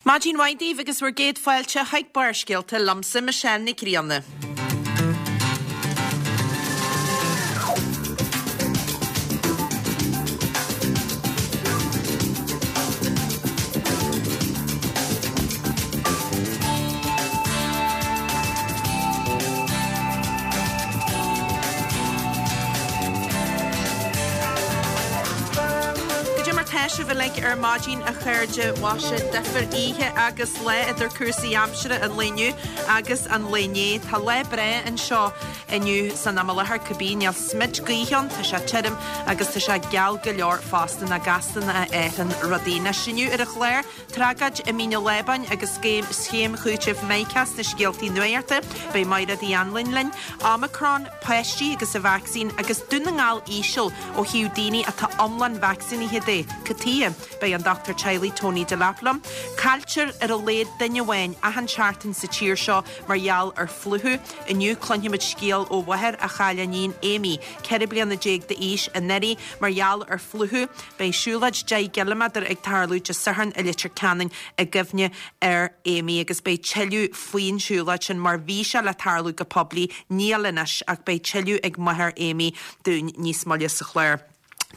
Maidin mhaith daoibh agus bhur gcéad fáilte chuig Barrscéalta liomsa, Michelle Nic Grianna. Goidé mar tá sibh uilig ar maidin a chairde mhaise difear oíche agus lá idir cúrsaí aimsire an lae inniu agus an lae inné. Tá lá breá anseo inniu san am i láthair cibé níl smid gaoithe ann, tá sé tirim agus tá sé geal go leor fosta nach gasta a athraíonn rudaí. Anois inniu ar an chlár Tragóid i Mín an Lábáin agus scéim chúitimh Mica sna scéaltaí nuachta. Beidh Mairéad Uí Anluain linn. Omicron, páistí agus an vacsaín agus Dún na nGall íseal ó thaobh daoine atá iomlán vacsaínithe de. Cad tuighe? Beidh an dochtúir teaghlaigh Tony Delap liom. Cailltear ar a laghad duine amháin achan seachtain sa tír seo mar gheall ar phlúchadh. Inniu cluinfimid scéal ó mháthair a chaill a níon Amy, 14 bliana d'aois, anuraidh mar gheall ar phlúchadh. Beidh siúlóid 10 gciliméadar ag tarlú Dé Sathairn i Leitir Ceanainn i gcuimhne ar Amy agus beidh tuilleadh faoin siúlóid sin mar bhí sé le tarlú go poiblí, níl anois ach beidh tuilleadh ag máthair Amy dúinn níos moille sa chlár.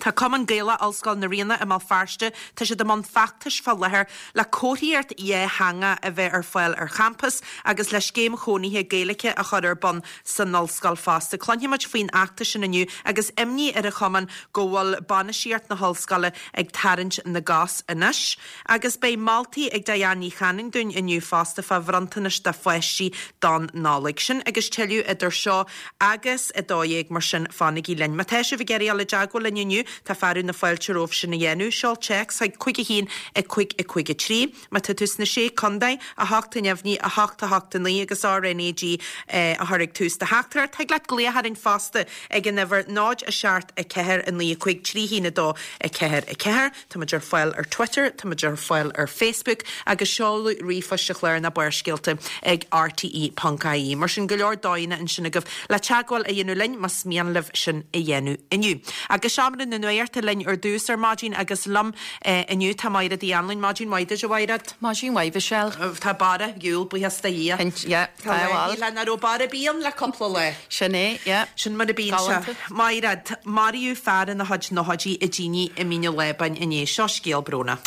Tá Cumann Gaelach Ollscoil na Ríona i mBéal Feirste, tá siad i mbun feachtais fá láthair le comharthaíocht dhátheangach a bheith ar fáil ar champas agus le scéim chónaithe Gaeilge a chur ar bun san ollscoil fosta. Cluinfimid faoin fheachtas sin inniu agus imní ar an chumann go bhfuil bainistíocht na hollscoile ag tarraingt na gcos anois. Agus beidh moltaí ag Diane Ní Chanainn dúinn inniu fosta fá bhronntanais do pháistí don Nollaig. Sin agus tuilleadh idir seo agus 12 mar sin fanaigí linn. Má tá sibh ag iarraidh dul i dteagmháil linn inniu tá fearadh na fáilte romhaibh sin a dhéanamh. Seol téacs chuig 5 1 5 5 3. Má tá tú sna Sé Contae, 8 neamhní, 8 8 9 agus RnaG a chur ag tús do theachtaireacht. Thig leat glaoch orainn fosta ag an uimhir 0 7 4 9 5 3 1 2 4 4. Tá muid ar fáil ar Twitter, tá muid ar fáil ar Facebook agus seoladh ríomhphoist an chláir ná Barrscéalta ag rte.ie. Mar sin, go leor dóigheanna ansin agaibh le teagmháil a dhéanamh linn más mian libh sin a dhéanamh inniu. Agus Seomra na Nuachta linn ar dtús ar maidin agus liom inniu tá Maighread Uí Anluain. Maidin mhaith duit, a Mhaighread. Maidin mhaith, Mhichelle. Tá borradh Iúil, buíochas do Dhia. Yeah, tá bhuel. Tá nach raibh borradh ar bith ann le cúpla lá. Sin é, yeah. Sin mar a bíonn sé. Maighread, maraíodh fear ina chuid nóchaidí i dtine i Mín an Lábáin inné. Seo scéal brónach.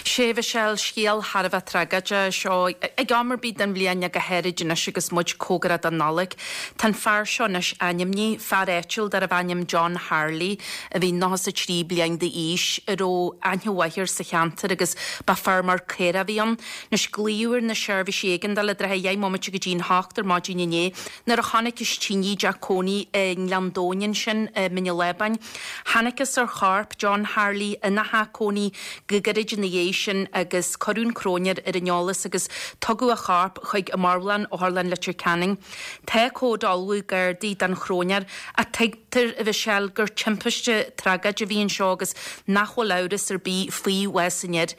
Sea, Mhichelle, scéal thar a bheith tragóideach seo. Ag am ar bith den bhliain ach go háirid anois agus muid cóngarach don Nollaig. Tá an fear seo anois ainmnithe, fear áitiúil darbh ainm John Harley, a bhí 93 bliain d'aois, a raibh aithne mhaith air sa cheantar agus ba feirmeoir caorach a bhí ann. Anois glaodh ar na seirbhísí éigeandála i dtrátha dheich mbomaite go dtí'n hocht ar maidin inné nuair a chonacthas tine i dteach cónaí i nGleann Domhain ansin i Mín an Lábáin. Thángthas ar chorp John Harley ina theach cónaí go gairid ina dhiaidh sin agus cuireadh an cróinéir ar an eolas agus tugadh a chorp chuig an marbhlann, Otharlann Leitir Ceanainn. Tá comhad á ullmhú ag Gardaí don chróinéir ach tuigtear, a Mhichelle, gur timpiste tragóid a bhí anseo agus nach bhfuil amhras ar bith faoi bhás an fhir.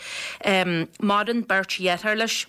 Maireann beirt dheartháir leis,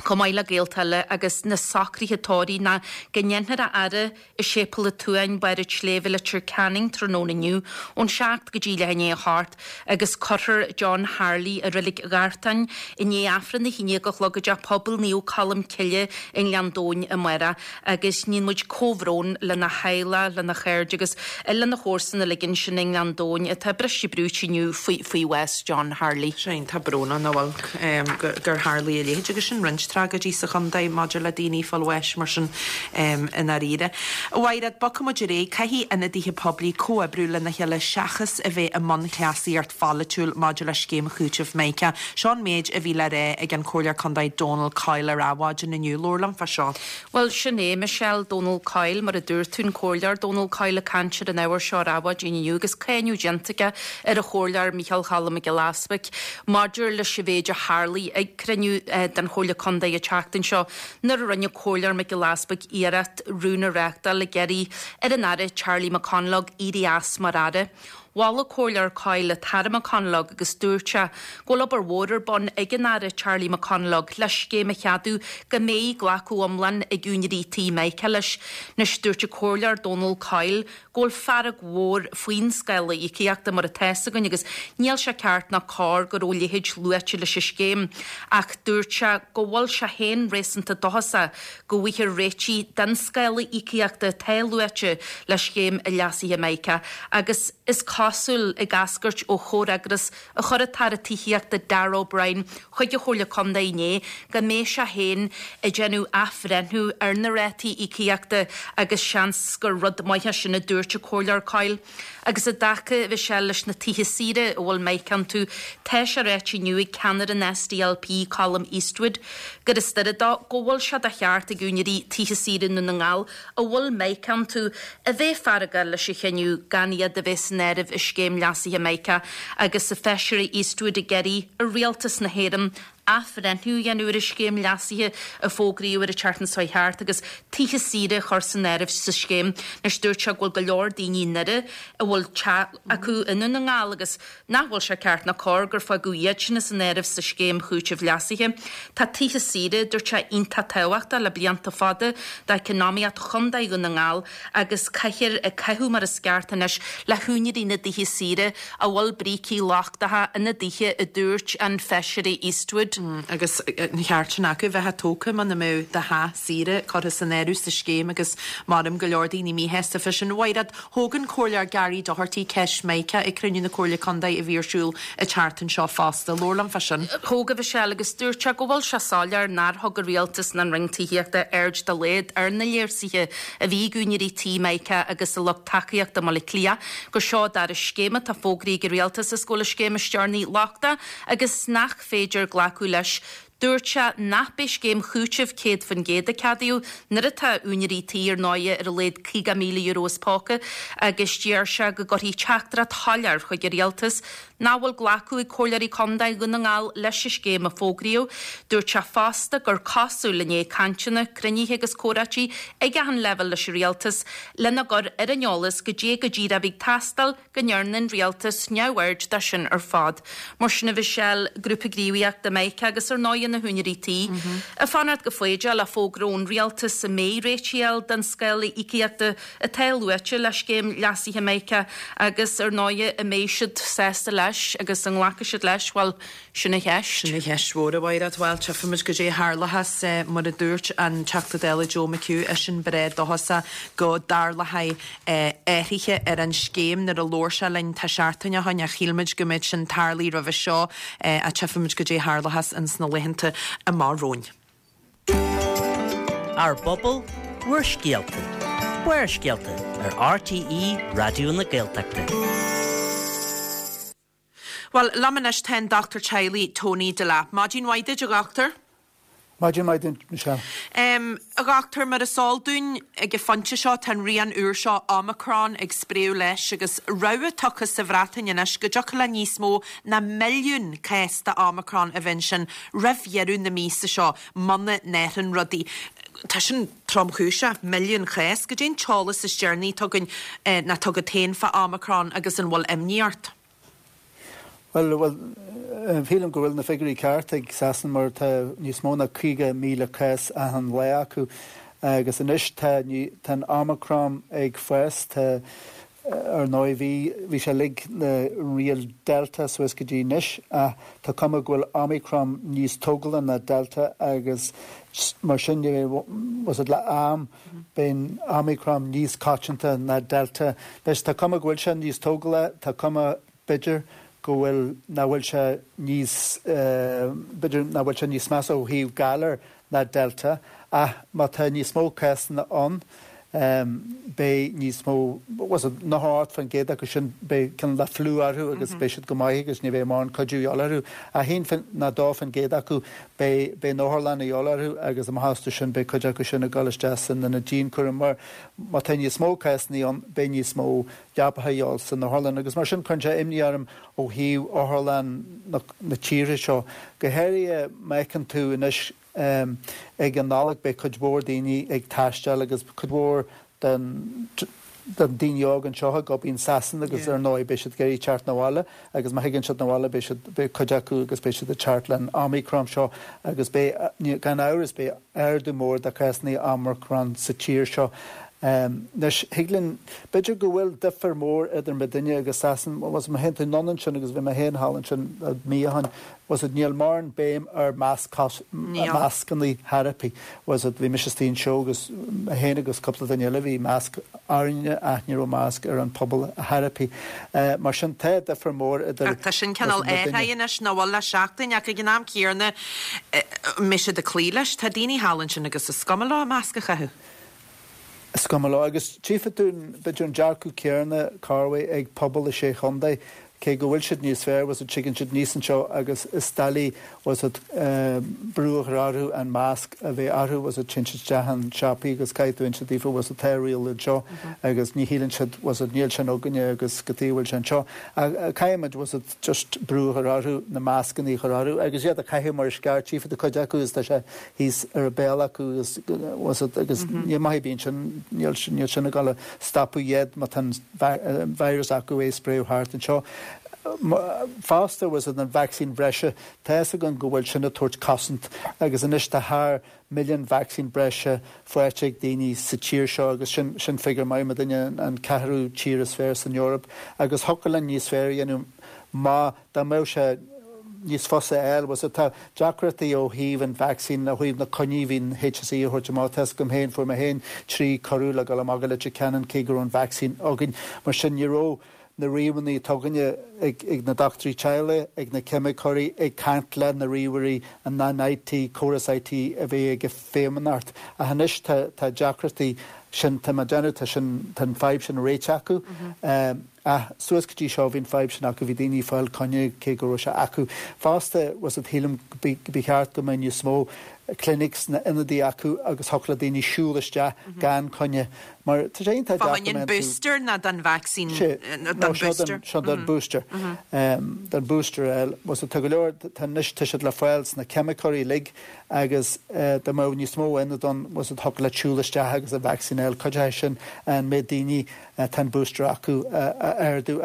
chomh maith le gaolta eile agus na socruithe tórraimh ná go ndéanfar a fhaire i Séipéal an tSuain, Barr an tSléibhe, Leitir Ceanainn tráthnóna inniu ón 7 go dtí leath i ndiaidh a hocht agus cuirfear John Harley i Reilig Ghartáin i ndiaidh Aifreann a haon déag a chlog i dTeach Pobail Naomh Colm Cille i nGleann Domhain amárach agus níonn muid comhbhrón lena theaghlach, lena chairde agus lena chomharsana uilig ansin i nGleann Domhain atá briste brúite inniu faoi bhás John Harley. Sea, iontach brónach nach bhfuil gur tharlaigh a leithéid agus sin roinnt tragóidí sa chontae maidir le daoine ag fáil bháis mar sin i ndáiríre. A Mhaighread, bogfaidh muid ar aghaidh. Caithfidh ionadaithe poiblí comhoibriú lena chéile seachas a bheith i mbun cleasaíocht pholaitiúil maidir le scéim chúitimh Mica. Seo an méid a bhí le rá ag an Comhairleoir Contae Donal Coyle ar Adhmhaidin inniu. Labhair liom fá seo. Bhuel, sin é, Michelle, Donal Coyle, mar a dúirt tú, an Comhairleoir Donal Coyle ag caint ar an ábhar seo ar Adhmhaidin inniu agus cáineadh déanta aige ar an Chomhairleoir Micheál Cholm Mac Giolla Easbuic maidir leis an mhéid a tharlaigh ag cruinniú den Chomhairle Contae an tseachtain seo nuair a rinne Comhairleoir Mac Giolla Easbuic iarracht rún a reáchtáil ag iarraidh ar an Aire Charlie McConalogue éirí as mar Aire. Mhol an Comhairleoir Coyle an tAire McConalogue agus dúirt sé go bhfuil obair mhór ar bun ag an Aire Charlie McConalogue le scéim a cheadú go mbeidh glacadh iomlán ag úinéirí tí MICA leis. Anois dúirt an Comhairleoir Dónal Coyle go bhfuil fearg mhór faoin scála íocaíochta mar atá fhios againn agus níl sé ceart ná cóir go raibh a leithéid luaite leis an scéim ach dúirt sé go bhfuil sé féin réasúnta dóchasach go bhfaighfear réitigh don scála íocaíochta atá luaite le scéim leasaithe MICA agus is cosúil, ag eascairt ó chomhfhreagras a chuir an tAire Tithíochta Darragh O'Brien chuig an Chomhairle Contae inné, go mbeidh sé féin ag déanamh athbhreithniú ar na rátaí íocaíochta agus seans gur rud maith é sin, a dúirt an Comhairleoir Coyle. Agus i dtaca, a Mhichelle, leis na tithe saoire a bhfuil MICA iontu, tá sé ráite inniu ag ceannaire an SDLP, Colum Eastwood, gur as Doire dó go bhfuil sé de cheart ag úinéirí tithe saoire i nDún na nGall a bhfuil MICA iontu a bheith feargach leis an chinneadh gan iad a bheith san áireamh i scéim leasaithe MICA agus an Feisire Eastwood ag iarraidh ar Rialtas na hÉireann athbhreithniú a dhéanamh ar an scéim leasaithe a fógraíodh ar an tseachtain seo thart agus tithe saoire a chur san áireamh sa scéim. Anois dúirt sé go bhfuil go leor daoine i nDoire a bhfuil teach acu i nDún na nGall agus nach bhfuil sé ceart ná cóir gur fágadh iad sin as an áireamh sa scéim chúitimh leasaithe. Tá tithe saoire, dúirt sé, iontach tábhachtach le blianta fada d'eacnamaíocht Chontae Dhún na nGall agus caithfear caitheamh mar is ceart anois le húinéirí na dtithe saoire a bhfuil brící lochtacha ina dtithe, a dúirt an Feisire Eastwood. Agus an ceart sin acu bheith tógtha muna mbeadh do theach saoire curtha san áireamh sa scéim agus maram go leor daoine míshásta fé sin. Mhaighread, Thóg an Comhairleoir Gary Doherty ceist MICA ag cruinniú na Comhairle Contae a bhí ar siúl an tseachtain seo fosta. Labhair liom fá sin. Thóg, a Mhichelle, agus dúirt sé go bhfuil sé soiléir nár thug an Rialtas ná an Roinn Tithíochta aird dá laghad ar na léirsuithe a bhí ag úinéirí tí MICA agus a lucht tacaíochta i mBaile Átha Cliath gur seo an dara scéim atá fógraithe ag an Rialtas is go bhfuil an scéim is deireanaí lochtach agus nach féidir glacadh leis. Dúirt sé nach b'é scéim chúitimh 100% a ceadaíodh nuair atá úinéirí tí ar ndóigh ar a laghad €50,000 as póca agus deir sé go gcuirfidh teachtaireacht shoiléir chuig an Rialtas nach bhfuil glacadh ag Comhairleoirí Contae Dhún na nGall leis an scéim a fógraíodh. Dúirt sé fosta gur cosúil i ndiaidh cainteanna, cruinnithe agus comhráití ag achan leibhéal leis an Rialtas lena gcur ar an eolas goidé go díreach a bhí ag teastáil go ndearna an rialtas neamhaird de sin ar fad. Mar sin, a Mhichelle, Grúpa Gníomhaíochta MICA agus ar ndóighe na húinéirí tí, ag fanacht go foighdeach le fógra ón rialtas an mbeidh réitigh á fháil don scála íocaíochta atá luaite le scéim leasaithe MICA agus ar ndóighe an mbeidh siad sásta leis agus an nglacfaidh siad leis, bhuel, Sin an cheist. Sin an cheist mhór, a Mhaighread. Bhuel, tchífimid goidé a tharlóchas. Mar a dúirt an Teachta Dála Joe McHugh, eisean breá dóchasach go dtarlóchaidh athruithe ar an scéim nuair a labhair sé linn tá seachtain ó shoin ach shíl muid go mbeadh sin tarlaithe roimhe seo ach tchífimid goidé a tharlóchas ins na laethanta amach romhainn. Ár bpobal, bhur scéalta. Barrscéalta ar RTÉ Raidió na Gaeltachta. Bhuel, liom anois tá an Dochtúir Teaghlaigh Tony Delap. Maidin mhaith duit, a Dhochtúir. Maidin mhaith duit, Michelle. A Dhochtúir, mar is eol dúinn, ag an phointe seo tá an rian úr seo, Omicron, ag spréadh leis agus rabhadh tugtha sa Bhreatain anois go dtiocfadh le níos mó ná milliún cás de Omicron a bheith ansin roimh dheireadh na míosa seo muna n-athraíonn rudaí. Tá sin tromchúiseach, milliún cás. Goidé an t-eolas is deireanaí atá againn, nó atá agat féin fá Omicron agus an bhfuil imní ort? Bhuel, bhuel, shílim go bhfuil na figiúirí ceart ag Sasana mar tá níos mó ná 50,000 cás achan lá acu agus anois tá, tá an Omicron ag fás, tá, ar ndóigh bhí, bhí sé uilig na riail Delta suas go dtí anois ach tá cuma go bhfuil Omicron níos tógála ná Delta agus mar sin de, was it le am, beidh Omicron níos coitianta ná Delta. Anois tá cuma go bhfuil sé níos tógála, tá cuma b'fhéidir go bhfuil, nach bhfuil sé níos, b'fhéidir nach bhfuil sé níos measa ó thaobh galar ná Delta ach má tá níos mó cásanna ann beidh níos mó, was it 98% acu sin beidh cineál de fliú orthu agus beidh siad go maith agus ní bheidh mórán cuidiú a dhíobháil orthu ach 1 nó 2% acu Beidh, beidh an otharlann a dhíobháil orthu agus amach astu sin beidh cuid acu sin ag dul isteach san ionad dianchúraim mar má tá níos mó cásanna ann beidh níos mó leapacha a dhíobháil san otharlann agus mar sin cuireann sé imní orm ó thaobh otharlann na, na tíre seo. Go háirithe má fheiceann tú anois ag an Nollaig beidh cuid mhór daoine ag taisteal agus cuid mhór den. do daoine óga anseo ag obair in Sasana agus ar ndóigh beidh siad ag iarraidh teacht 'na bhaile agus má thigeann siad 'na bhaile beidh siad, beidh cuid acu agus beidh siad ag teacht le an Omicron seo agus beidh, gan amhras, beidh ardú mór de cásanna Omicron sa tír seo. Anois, thig linn, b'fhéidir go bhfuil difear mór idir muidinne agus Sasana, bhuel, má théann tú anonn ansin agus bhí mé féin thall ansin mí ó shin, bhfuil 'fhios a'd, níl mórán béim ar mascanna chor ar bith, bhfuil 'fhios a'd, bhí mise istigh anseo agus mé féin agus cúpla duine eile, bhí masc orainne ach ní raibh masc ar an pobal chor ar bith. Mar sin, tá difear mór idir Ach tá sin cineál athraithe anois, nach bhfuil, le seachtain, ach ag an am céanna, an mbeidh siad ag cloí leis? Tá daoine thall ansin agus is cuma leo masc a chaitheamh. Is cuma leo. Agus tchífidh tú, b'fhéidir, an dearcadh céanna, corruair, ag pobal na Sé Chontae, cé go bhfuil siad níos fearr, bhfuil 'fhios a'd, tigeann siad aníos anseo agus is doiligh, bhfuil 'fhios a'd, brú a chur orthu an masc a bheith orthu, bhfuil 'fhios a'd, téann siad isteach in siopaí agus caithfidh tú inse daofa, bhfuil 'fhios a'd, tá riail anseo agus ní shíleann siad, bhfuil 'fhios a'd, níl sin againne agus cad chuige a bhfuil sé anseo. Ach caithfidh muid, bhfuil 'fhios a'd, just brú a chur orthu, na mascanna a chur orthu agus iad a chaitheamh mar is ceart, tchífidh tú cuid acu agus tá sé thíos ar a béal acu agus bhfuil 'fhios a'd agus níl maith ar bith ansin, níl níl sin ag dul a stopadh iad má tá an virus acu é a spréadh thart anseo. Fosta bhfuil 'fhios a'd an vacsaín bhreise, tá fhios againn go bhfuil sin ag tabhairt cosaint agus anois tá thar milliún vacsaín breise faighte ag daoine sa tír seo agus sin sin figiúr maith, muidinne an ceathrú tír is fearr san Eoraip agus thiocfadh linn níos fearr a dhéanamh má dá mbeadh sé níos fusa a fháil. Bhfuil 'fhios a'd, tá deacrachtaí ó thaobh an vacsaín, ó thaobh na coinní a bhí an HSE a thabhairt amach. Tá 'fhios agam féin, fuair mé féin 3 cuireadh le dul amach go Leitir Ceanainn cé go raibh an vacsaín againn. Mar sin ní raibh na ríomhanna atá againne ag na dochtúirí teaghlaigh, ag na ceimiceoirí, ag caint le na ríomhairí, an an IT, córas IT a bhí ag an Feidhmeannacht. Ach anois tá tá deacrachtaí sin, tá mé ag déanamh, tá sin, tá an fadhb sin réitithe acu. Ach suas go dtí seo bhí an fadhb sin acu, bhí daoine ag fáil coinne cé go raibh sé acu. Fosta, bhfuil 'fhios a'd, shílim go ba cheart go mbeadh níos mó clinics nó ionadaí acu agus thiocfadh le daoine siúl isteach gan coinne. Mar tá sé iontach deacair Fá choinne an booster nó don vacsaín, don booster? Seo don booster. Don booster a fháil. Bhfuil 'fhios a'd, tá go leor, tá anois, tá siad le fáil sna ceimiceoirí uilig agus dá mbeadh níos mó ionad ann, bhfuil 'fhios a'd, thiocfadh leat siúl isteach agus an vacsaín a fháil. Cuideoidh sin an méid daoine tá an booster acu a ardú.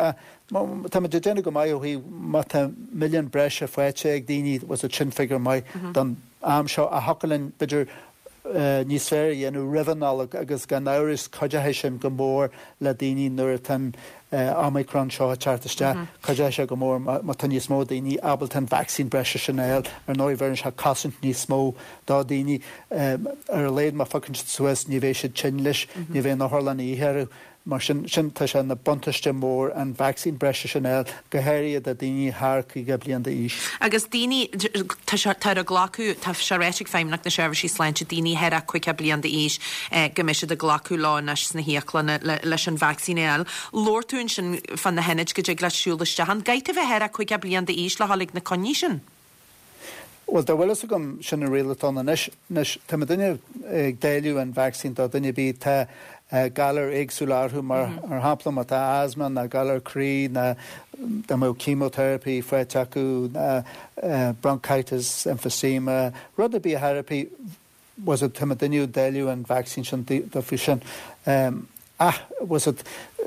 Táimid ag déanamh go maith ó thaobh má tá milliún breise faighte ag daoine, bhfuil 'fhios a'd, sin figiúr maith don am seo. Ach thiocfadh linn b'fhéidir níos fearr a dhéanamh roimh an Nollaig agus gan amhras cuideoidh sin go mór le daoine nuair atá an Omicron seo ag teacht isteach. Cuideoidh sé go mór má tá níos mó daoine ábalta an vacsaín breise sin a fháil. Ar ndóigh bheireann sé cosaint níos mó do dhaoine. Ar a laghad má phiocann siad suas ní bheidh siad tinn leis, ní bheidh an otharlann a dhíth orthu. Mar sin, sin, tá sé ina buntáiste mór an vacsaín breise sin a fháil, go háirithe do dhaoine thar 50 bliain d'aois. Agus daoine, tá sé, tá ar a glacadh, tá sé ráite ag Feidhmeannacht na Seirbhísí Sláinte, daoine thar a 50 bliain d'aois, go mbeidh siad ag glacadh leo anois sna híoclanna le, leis an vacsaín a fháil. Labhair tú ansin fá na hionaid go dtig leat siúl isteach ann. Caithfidh tú bheith thar a 50 bliain d'aois le dhul ag na coinní sin? Bhuel, dá bhfuil fhios agam, sin an riail atá ann anois. Anois, tá muidinne ag dáileadh an vacsaín do dhuine ar bith tá galair éagsúla orthu, mar shampla má tá asthma ná galar croí ná dá mbeadh chemotherapy faighte acu ná bronchitis, emphysema, rud ar bith a therapy, bhfuil 'fhios a'd, tá muidinne ag dáileadh an vacsaín sin daofa sin. Ach, bhfuil 'fhios a'd,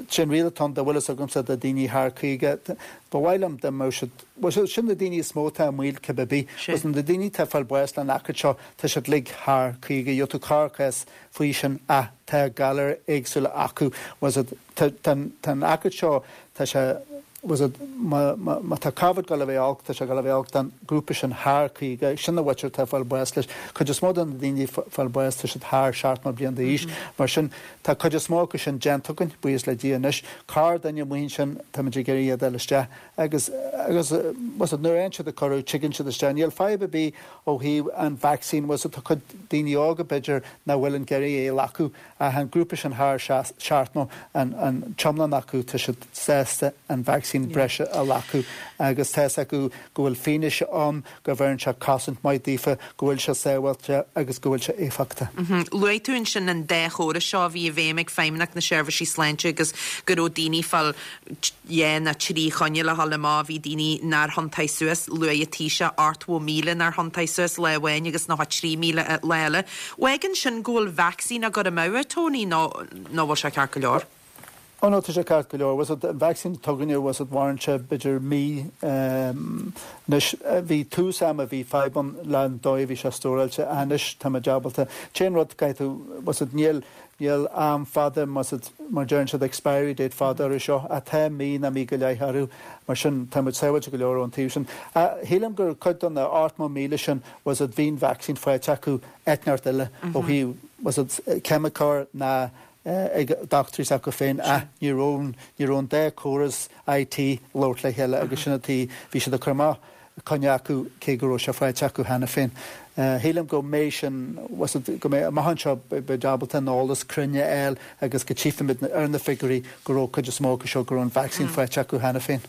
sin riail atá ann, dá bhfuil fhios agamsa do daoine thar 50, ba mhaith liom dá mbeadh siad, bhfuil 'fhios a'd, sin na daoine is mó atá i mbaol cibé ar bith. Bhfuil 'fhios a'd, na daoine atá ag fáil bás le an aicid seo, tá siad uilig thar 50, gheobhaidh tú corrchás faoi sin ach tá galair éagsúla acu. Bhfuil 'fhios a'd, tá, tá, tá an aicid seo, tá sé, bhfuil 'fhios a'd, má, má, má tá Covid ag dul a bheith olc, tá sé ag dul a bheith olc don ghrúpa sin thar 50, sin an mhuintir atá ag fáil bás leis. Cuid is mó de na daoine ag fáil bás, tá siad thar 70 bliain d'aois. Mar sin, tá cuid is mó acu sin déanta againn, buíochas le Dia anois. Corrdhuine amuigh ansin, táimid ag iarraidh iad a fháil isteach agus, agus, bhfuil 'fhios a'd, nuair a fhaigheann siad an cuireadh, tigeann siad isteach. Níl fadhb ar bith ó thaobh an vacsaín, bhfuil 'fhios a'd, tá cuid daoine óga, b'fhéidir, nach bhfuil ag iarraidh é a ghlacadh. Ach an grúpa sin thar 70, an t-iomlán acu, tá siad sásta an vacsaín breise a ghlacadh agus tá 'fhios acu go bhfuil fianaise ann go bheireann sé cosaint maith daofa, go bhfuil sé sábháilte agus go bhfuil sé éifeachtach. Luaigh tú ansin an dá chóras seo a bhí i bhfeidhm ag Feidhmeannacht na Seirbhísí Sláinte agus go raibh daoine ag fáil dhá nó trí choinne le dhul amach, bhí daoine nár thiontaigh suas, luaigh an Taoiseach 80,000 nár thiontaigh suas lá amháin agus 93,000 lá eile. Fágann sin go bhfuil vacsaín á gcur amú, a Tony, nó nó bhfuil sé ceart go leor? Oh no, tá sé ceart go leor. Bhfuil 's agat, an vacsaín atá againne, bhfuil 's agat, mhaireann sé b'fhéidir mí. Anois, bhí tús ama, bhí fadhb ann le an dóigh a bhí sé stóráilte ach anois tá muid ábalta. T-aon rud, caithfidh tú, bhfuil 's agat, níl, níl am fada, bhfuil 's agat, mar deireann siad expiry date fada orthu seo ach tá mí nó mí go leith orthu. Mar sin, tá muid sábháilte go leor ón taobh sin. Ach shílim gur cuid de na 80,000 sin, bhfuil 's agat, bhí an vacsaín faighte acu áit inteacht eile ó thaobh, bhfuil 's agat, ceimiceoir ná ag dochtúirí s'acu féin ach ní raibh ní raibh an dá córas IT ag labhairt le chéile agus sin an tuige bhí siad ag cur amach coinne acu cé go raibh sé faighte acu cheana féin. Shílim go mbeidh sin go mbeidh amach anseo beidh ábalta an eolas cruinn a fháil agus go tchífimid ar na figiúirí go raibh cuid is mó acu seo go raibh an vacsaín faighte acu cheana féin.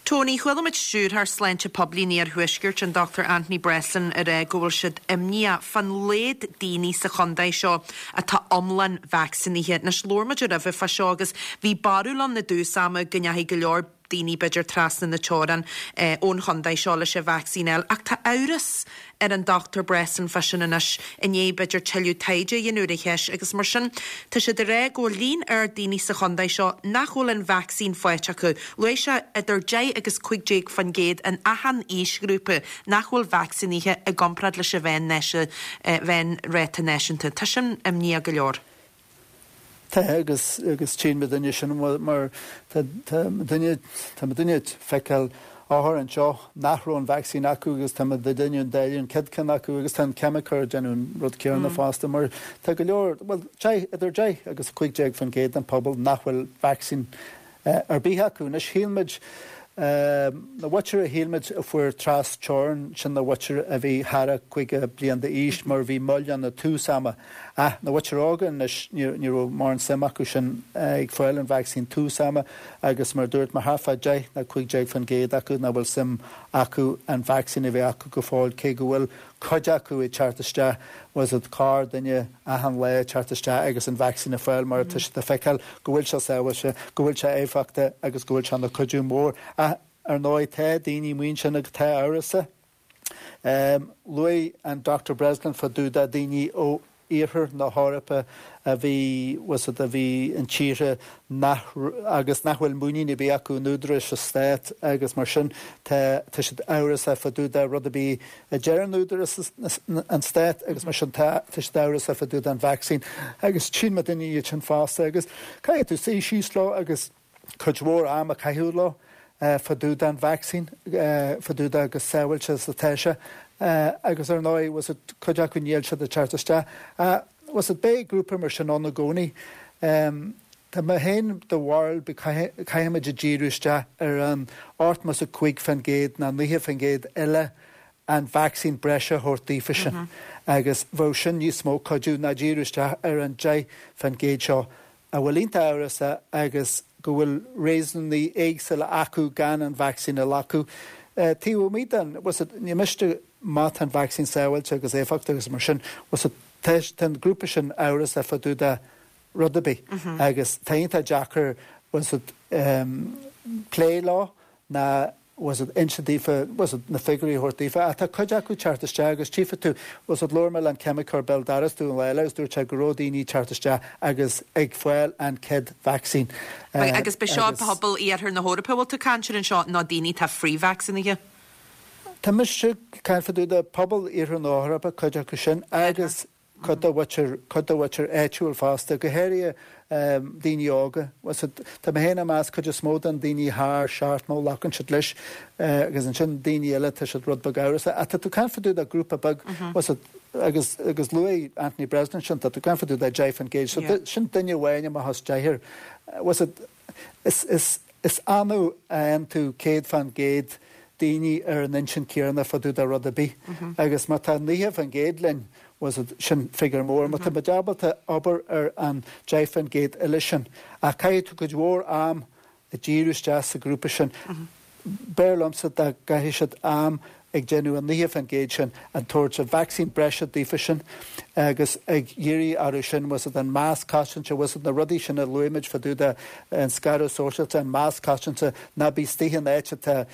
Tony, Chuala muid Stiúrthóir Sláinte Poiblí an Iarthuaiscirt, an Dr Anthony Breslin, ag rá go bhfuil siad imníoch fán laghad daoine sa chontae seo atá iomlán vacsaínithe. Anois, labhair muid roimhe fá seo agus bhí barúil ann i dtús ama go ndeachaigh go leor daoine b'fhéidir trasna na teorann ón chontae seo leis an vacsaín a fháil ach tá amhras ar an Dr Breslin fá sin anois i ndiaidh b'fhéidir tuilleadh taighde a dhéanamh ar an cheist agus mar sin tá siad ag rá go bhfuil líon ard daoine sa chontae seo nach bhfuil an vacsaín faighte acu. Luaigh sé idir 10 agus 15% in achan aoisghrúpa nach bhfuil vacsaínithe i gcomparáid leis an mheánráta náisiúnta. Tá sin imníoch go leor. Tá agus agus tchíonn muidinne sin mar tá tá muidinne tá muidinne ag feiceáil othar anseo nach raibh an vacsaín acu agus tá muidinne ag dáileadh an chéad ceann acu agus tá an ceimiceoir ag déanamh an rud céanna fosta mar tá go leor bhuel 10 idir 10 agus 15% den pobal nach bhfuil vacsaín ar bith acu. Anois shíl muid, na mhuintir a shíl muid a fuair tras teorann, sin na mhuintir a bhí thar a 50 bliain d'aois mar bhí moill ann i tús ama. Ach na mhuintir óga anois ní ní raibh mórán suim acu sin ag fáil an vacsaín tús ama agus mar a dúirt mé thart fá 10 nó 15% acu nach bhfuil suim acu an vacsaín a bheith acu go fóill cé go bhfuil cuid acu ag teacht isteach, bhfuil 's agat, corr duine achan lá ag teacht isteach agus an vacsaín a fáil mar tá siad ag feiceáil go bhfuil sé sábháilte, go bhfuil sé éifeachtach agus go bhfuil sé ina cuidiú mór. Ach ar ndóigh tá daoine amuigh ansin agus atá amhrasach. Luaigh an Dr Breslin fá dtaobh de daoine ó iarthar na hEorpa a bhí, bhfuil 's agat, a bhí in tíortha nach, agus nach bhfuil muinín ar bith acu in údaráis an stát agus mar sin tá, tá siad amhrasach fá dtaobh de rud ar bith a deireann údaráis an stát agus mar sin tá, tá siad amhrasach fá dtaobh den vacsaín agus tchíonn muidinne iad sin fosta agus caithfidh tú suí síos leo agus cuid mhór am a chaitheamh leo fá dtaobh den vacsaín, fá dtaobh de chomh sábháilte is atá sé agus ar ndóigh, bhfuil 's agat, cuid acu níl siad ag teacht isteach. Bhfuil 's agat, beidh grúpa mar sin ann i gcónaí. Tá mé féin de bharúil go caithfimid a díriú isteach ar an 85% nó 90% eile an vacsaín breise a thabhairt daofa sin agus bheadh sin níos mó cuidiú ná díriú isteach ar an 10% seo a bhfuil iontach amhrasach agus go bhfuil réasúnaí éagsúla acu gan an vacsaín a ghlacadh. Taobh amuigh den, bhfuil 's agat, ní miste má tá an vacsaín sábháilte agus éifeachtach agus mar sin, bhfuil 's agat, tá an grúpa sin amhrasach fá dtaobh de rud ar bith agus tá iontach deacair, bhfuil 's agat, plé leo ná bhfuil 's agat, inse daofa, bhfuil 's agat, na figiúirí a thabhairt daofa. Ach tá cuid acu ag teacht isteach agus tchífidh tú, bhfuil 's agat, labhair mé le an ceimiceoir Bill Darastu an lá eile agus dúirt sé go raibh daoine ag teacht isteach agus ag fáil an chéad vacsaín. Agus b'é seo pobal iarthar na hEorpa a bhfuil tú ag caint air anseo nó daoine atá frithvacsaínithe? Tá mise ag caint fá dtaobh de pobal iarthar na hEorpa, cuid acu sin, agus cuid de mhuintir, cuid de mhuintir áitiúil fosta, go háirithe daoine óga. Bhfuil 's agat, tá mé féin ag meas cuid is mó den daoine thar 70 glacann siad leis agus ansin daoine eile tá siad rud beag amhrasach. Ach tá tú ag caint fá dtaobh de grúpa beag, bhfuil 's agat, agus, agus luaigh Anthony Breslin sin, tá tú ag caint fá dtaobh de 10%, so sin duine amháin amach as deichniúr. Bhfuil 's agat, is, is, is annamh a fhaigheann tú 100% daoine ar an intinn céanna fá dtaobh de rud ar bith agus má tá 90% linn, bhfuil 's agat, sin figiúr mór. Má tá muid ábalta obair ar an 10% eile sin, ach caithfidh tú cuid mhór am a dhíriú isteach sa ghrúpa sin. B'fhearr liomsa dá gcaithfeadh siad am ag déanamh an 90% sin, ag tabhairt an vacsaín breise daofa sin agus ag iarraidh orthu sin, bhfuil 's agat, an masc cosainte, bhfuil 's agat, na rudaí sin a luaigh muid fá dtaobh de an scaradh sóisialta, an masc cosainte, ná bí istigh in áit atá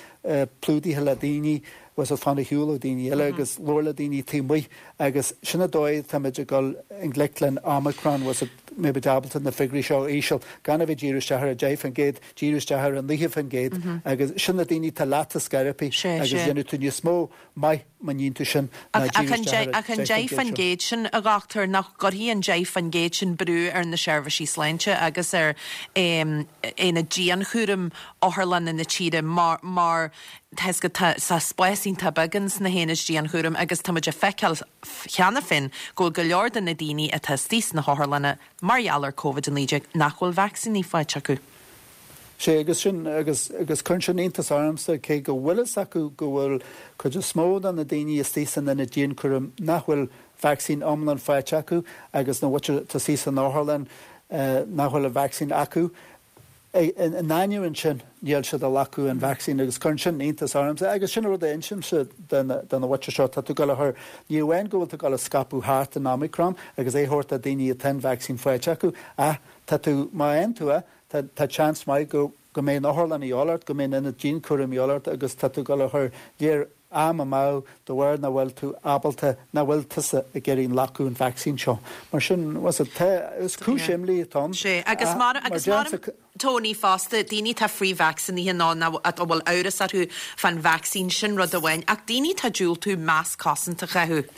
plódaithe le daoine, bhfuil 's agat, fan ar shiúl ó daoine eile agus labhair le daoine taobh amuigh agus sin an dóigh atáimid ag dul i ngleic le an Omicron, bhfuil 's agat. mbeidh muid ábalta na figiúirí seo a íseal, gan a bheith díriú isteach ar 10%, díriú isteach ar 9% agus sin na daoine atá leat ag scor ar bith agus dhéanfaidh tú níos mó maith má níonn tú sin ná díriú isteach ar an 10% sin, a dhochtúir, nach gcuirfidh an 10% sin brú ar na seirbhísí sláinte agus ar aonaid dianchúraim otharlanna na tíre mar mar tá fhios agat tá spás iontach beag ins na haonaid dianchúraim agus tá muid ag feiceáil cheana féin go bhfuil go leor de na daoine atá istigh sna hotharlanna mar gheall ar Covid-19 nach bhfuil vacsaíní faighte acu. Sea, agus sin, agus, agus cuireann sin iontas ormsa, cé go bhfuil fhios acu go bhfuil cuid is mó de na daoine istigh san ionad dianchúraim nach bhfuil vacsaín iomlán faighte acu agus na mhuintir atá istigh san otharlann nach bhfuil an vacsaín acu. In ainneoin sin, níl siad ag glacadh an vacsaín agus cuireann sin iontas ormsa agus sin an rud a insímse do na mhuintir seo, tá tú ag dul a chur, ní amháin go bhfuil tú ag dul a scaipeadh thart an Omicron agus é a thabhairt do daoine atá an vacsaín faighte acu ach tá tú, má fhaigheann tú é, tá tá seans maith go go mbeidh an otharlann a dhíobháil ort, go mbeidh an ionad dianchúraim a dhíobháil ort agus tá tú ag dul a chur léir am amú de bharr nach bhfuil tú ábalta, nach bhfuil tusa ag iarraidh glacadh an vacsaín seo. Mar sin, bhuel, tá, is cúis imní atá ann. Sea, agus mar, agus mar, Tony, fosta, daoine atá frithvacsaínithe nó nó a bhfuil amhras orthu fán vacsaín, sin rud amháin, ach daoine atá ag diúltú masc cosanta a chaitheamh.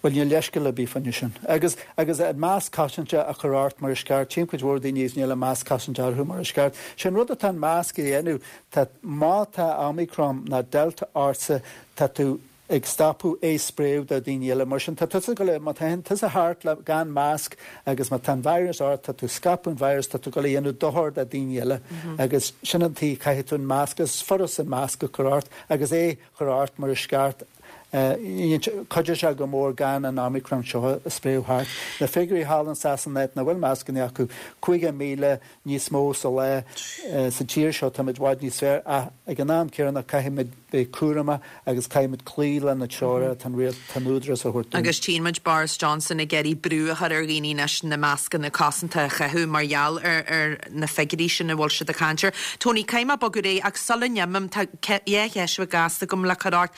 Bhuel, níl leithscéal ar bith fá choinne sin. Agus, agus an masc cosanta a chur ort mar is ceart, tchím cuid mhór daoine agus níl an masc cosanta orthu mar is ceart. Sé an rud atá an masc a dhéanamh, tá, má tá Omicron nó Delta ortsa, tá tú ag stopadh é spréadh do dhaoine eile. Mar sin, tá tusa ag dul, má tá tusa thart le, gan masc agus má tá an virus ort, tá tú ag scaipeadh an virus, tá tú ag dul a dhéanamh dochar do dhaoine eile. Agus sin an tuige caithfidh tú an masc, is furast an masc a chur ort agus é a chur ort mar is ceart. Cuideoidh sé go mór gan an Omicron seo a spréadh thart. Na figiúirí thall in Sasana áit nach bhfuil mascanna acu, 50,000 níos mó sa lá. Sa tír seo táimid i bhfad níos fearr ach ag an am céanna caithfimid bheith cúramach agus caithfimid cloí le na treoracha atá an rialtas, atá an údarás a thabhairt dúinn. Agus tchíonn muid Boris Johnson ag iarraidh brú a chur ar dhaoine anois na mascanna cosanta a chaitheamh mar gheall ar na figiúirí sin a bhfuil siad ag caint air. Tony, caithfidh mé bogadh ar aghaidh ach sula n-imím, tá dhá cheist bheag gasta agam le cur ort.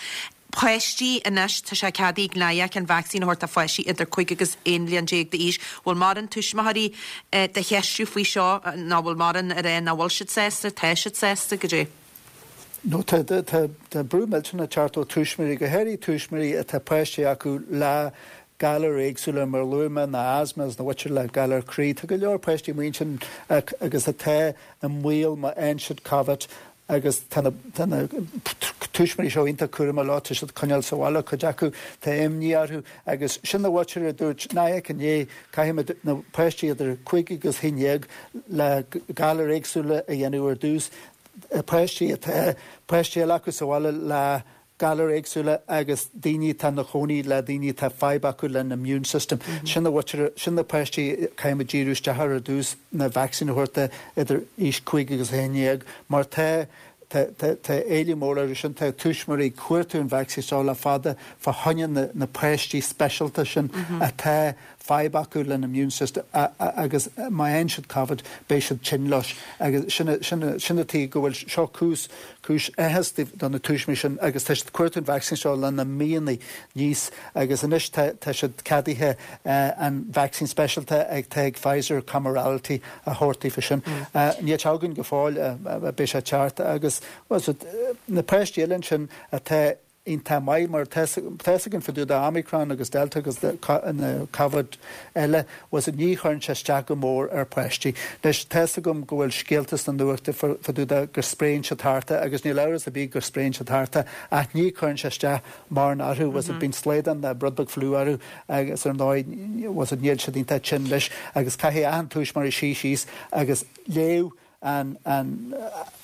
Páistí anois, tá sé ceadaithe ag NIAC an vacsaín a thabhairt do pháistí idir 5 agus 11 bhliain d'aois. Bhfuil mórán tuismitheoirí do cheistiú faoi seo nó bhfuil mórán ag rá nach bhfuil siad sásta, tá siad sásta, goidé? No, tá, tá, tá brú millteanach ag teacht ó tuismitheoirí, go háirithe tuismitheoirí atá páistí acu le galair éagsúla mar a luaigh mé, na asthma agus na mhuintir le galar croí. Tá go leor páistí amuigh ansin agus atá i mbaol má fhaigheann siad Covid agus tá na tá na tuismitheoirí seo iontach cúramach leo, tá siad ag coinneáil sa bhaile, cuid acu, tá imní orthu agus sin na mhuintir a dúirt NIAC inné, caithfimid na páistí idir 5 agus 11 le galair éagsúla a dhéanamh ar dtús, páistí atá páistí eile acu sa bhaile le galair éagsúla agus daoine atá ina chónaí le daoine atá fadhb acu lena immune system. Sin na mhuintir, sin na páistí caithfimid díriú isteach ar ar dtús na vacsaín a thabhairt do idir aois 5 agus 11 mar tá tá tá tá éileamh mór orthu sin, tá tuismitheoirí ag cuartú an vacsaín seo le fada fá choinne na na páistí speisialta sin atá fadhb acu lena immune system agus má fhaigheann siad Covid beidh siad tinn leis agus sin sin sin an tuige go bhfuil seo cúis cúis áthais do na tuismitheoirí sin agus tá siad ag cuartú an vacsaín seo le na míonna anuas agus anois tá tá siad ceadaithe an vacsaín speisialta ag tá ag Pfizer Comirnaty a thabhairt daofa sin. Níl sé againn go fóill beidh sé ag teacht agus bhuel na páistí eile ansin atá iontach maith mar tá fhios againn fá dtaobh de Omicron agus Delta agus na Covid eile bhuel ní chuireann sé isteach go mór ar pháistí. Anois tá fhios agam go bhfuil scéalta sna nuachta fá dtaobh de go spréann siad thart é agus níl amhras ar bith go spréann siad thart é ach ní chuireann sé isteach mórán orthu bhuel bíonn slaghdán nó rud beag fliú orthu agus ar ndóigh bhuel níl siad iontach tinn leis agus caithfidh achan tuismitheoir suí síos agus léamh an an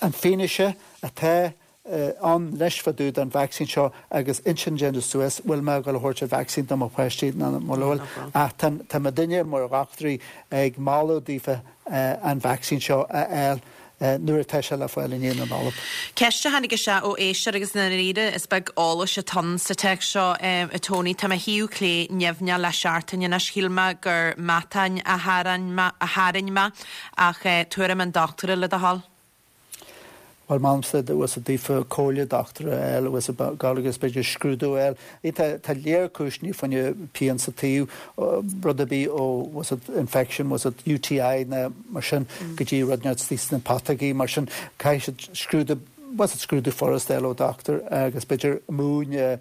an fianaise atá ann anois fá dtaobh den vacsaín seo agus intinn a dhéanamh suas, bhfuil mé ag dul a thabhairt an vacsaín do mo pháistí nó mura bhfuil. Ach tá tá muidinne mar dhochtúirí ag moladh daofa an vacsaín seo a fháil nuair atá sé le fáil i ndiaidh na Nollag. Ceist a tháinig isteach ó éisteoir agus i ndáiríre is beag eolais atá ann sa téacs seo, a Tony. Tá mo thaobh clé nimhneach le seachtain anois. Shíl mé gur matán a tharraing mé ach tuairim an dochtúra le do thoil. Bhuel, molaimse bhfuil fhios daofa comhairle dochtúra a fháil, bhfuil fhios agat, agus b'fhéidir scrúdú a fháil. Tá tá léar cúiseanna fá choinne pian sa taobh, rud ar bith ó bhfuil fhios agat infection, bhfuil fhios agat UTI ná mar sin go dtí rud inteacht istigh sna putógaí, mar sin caithfidh siad scrúdú, bhfuil fhios agat scrúdú furasta a fháil ó dochtúir agus b'fhéidir múin a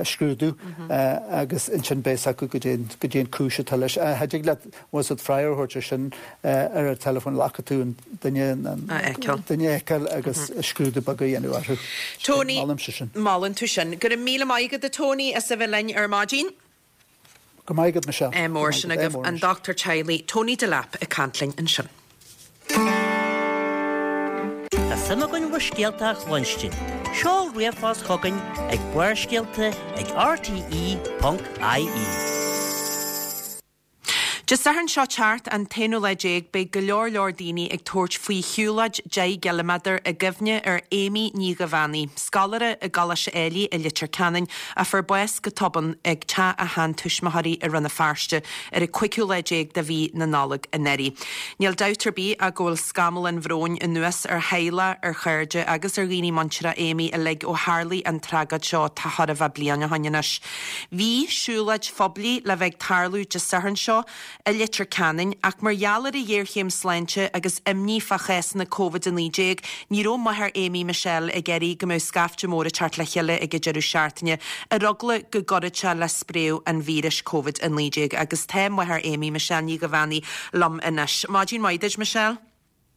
scrúdú agus ansin beidh fhios acu goidé goidé an cúis atá leis. Cha dtig leat bhfuil fhios agat freagra a thabhairt ar sin ar an teileafón le caithfidh tú an duine a fheiceáil. duine a fheiceáil agus scrúdú beag a dhéanamh orthu. Tony, Molaimse sin. Molann tú sin. Go raibh míle maith agat a Tony as a bheith linn ar maidin. Go raibh maith agat Michelle. Ádh mór sin agaibh. An dochtúir teaghlaigh Tony Delap ag caint linn ansin. Tá suim againn bhur scéalta a chluinstin. Seol ríomhphost chugainn ag barrscéalta ag rte.ie. Dé Sathairn seo teacht, an t-aonú lá déag, beidh go leor leor daoine ag tabhairt faoi shiúlóid 10 gciliméadar i gcuimhne ar Amy Ní Dhuibheannaigh, scoláire i gColáiste Éilí i Leitir Ceanainn a fuair bás go tobann ag teach a sheantuismitheoirí i Rann na Feirste ar an cúigiú lá déag de mhí na Nollag anuraidh. Níl dabht ar bith ach go bhfuil scamall an bhróin anuas ar theaghlach, ar chairde agus ar dhaoine muinteartha Amy uilig ó tharlaigh an tragóid seo tá chóir a bheith bliain ó shoin anois. Bhí siúlóid phoiblí le bheith ag tarlú Dé Sathairn seo i Leitir Ceanainn ach mar gheall ar an ghéarchéim sláinte agus imní fá chásanna Covid-19 ní raibh máthair Amy, Michelle, ag iarraidh go mbeadh scaifte mór ag teacht le chéile ag an deireadh seachtaine ar eagla go gcuirfeadh sé le spréadh an víris Covid-19 agus tá máthair Amy, Michelle Ní Dhuibheannaigh, liom anois. Maidin mhaith duit, Michelle.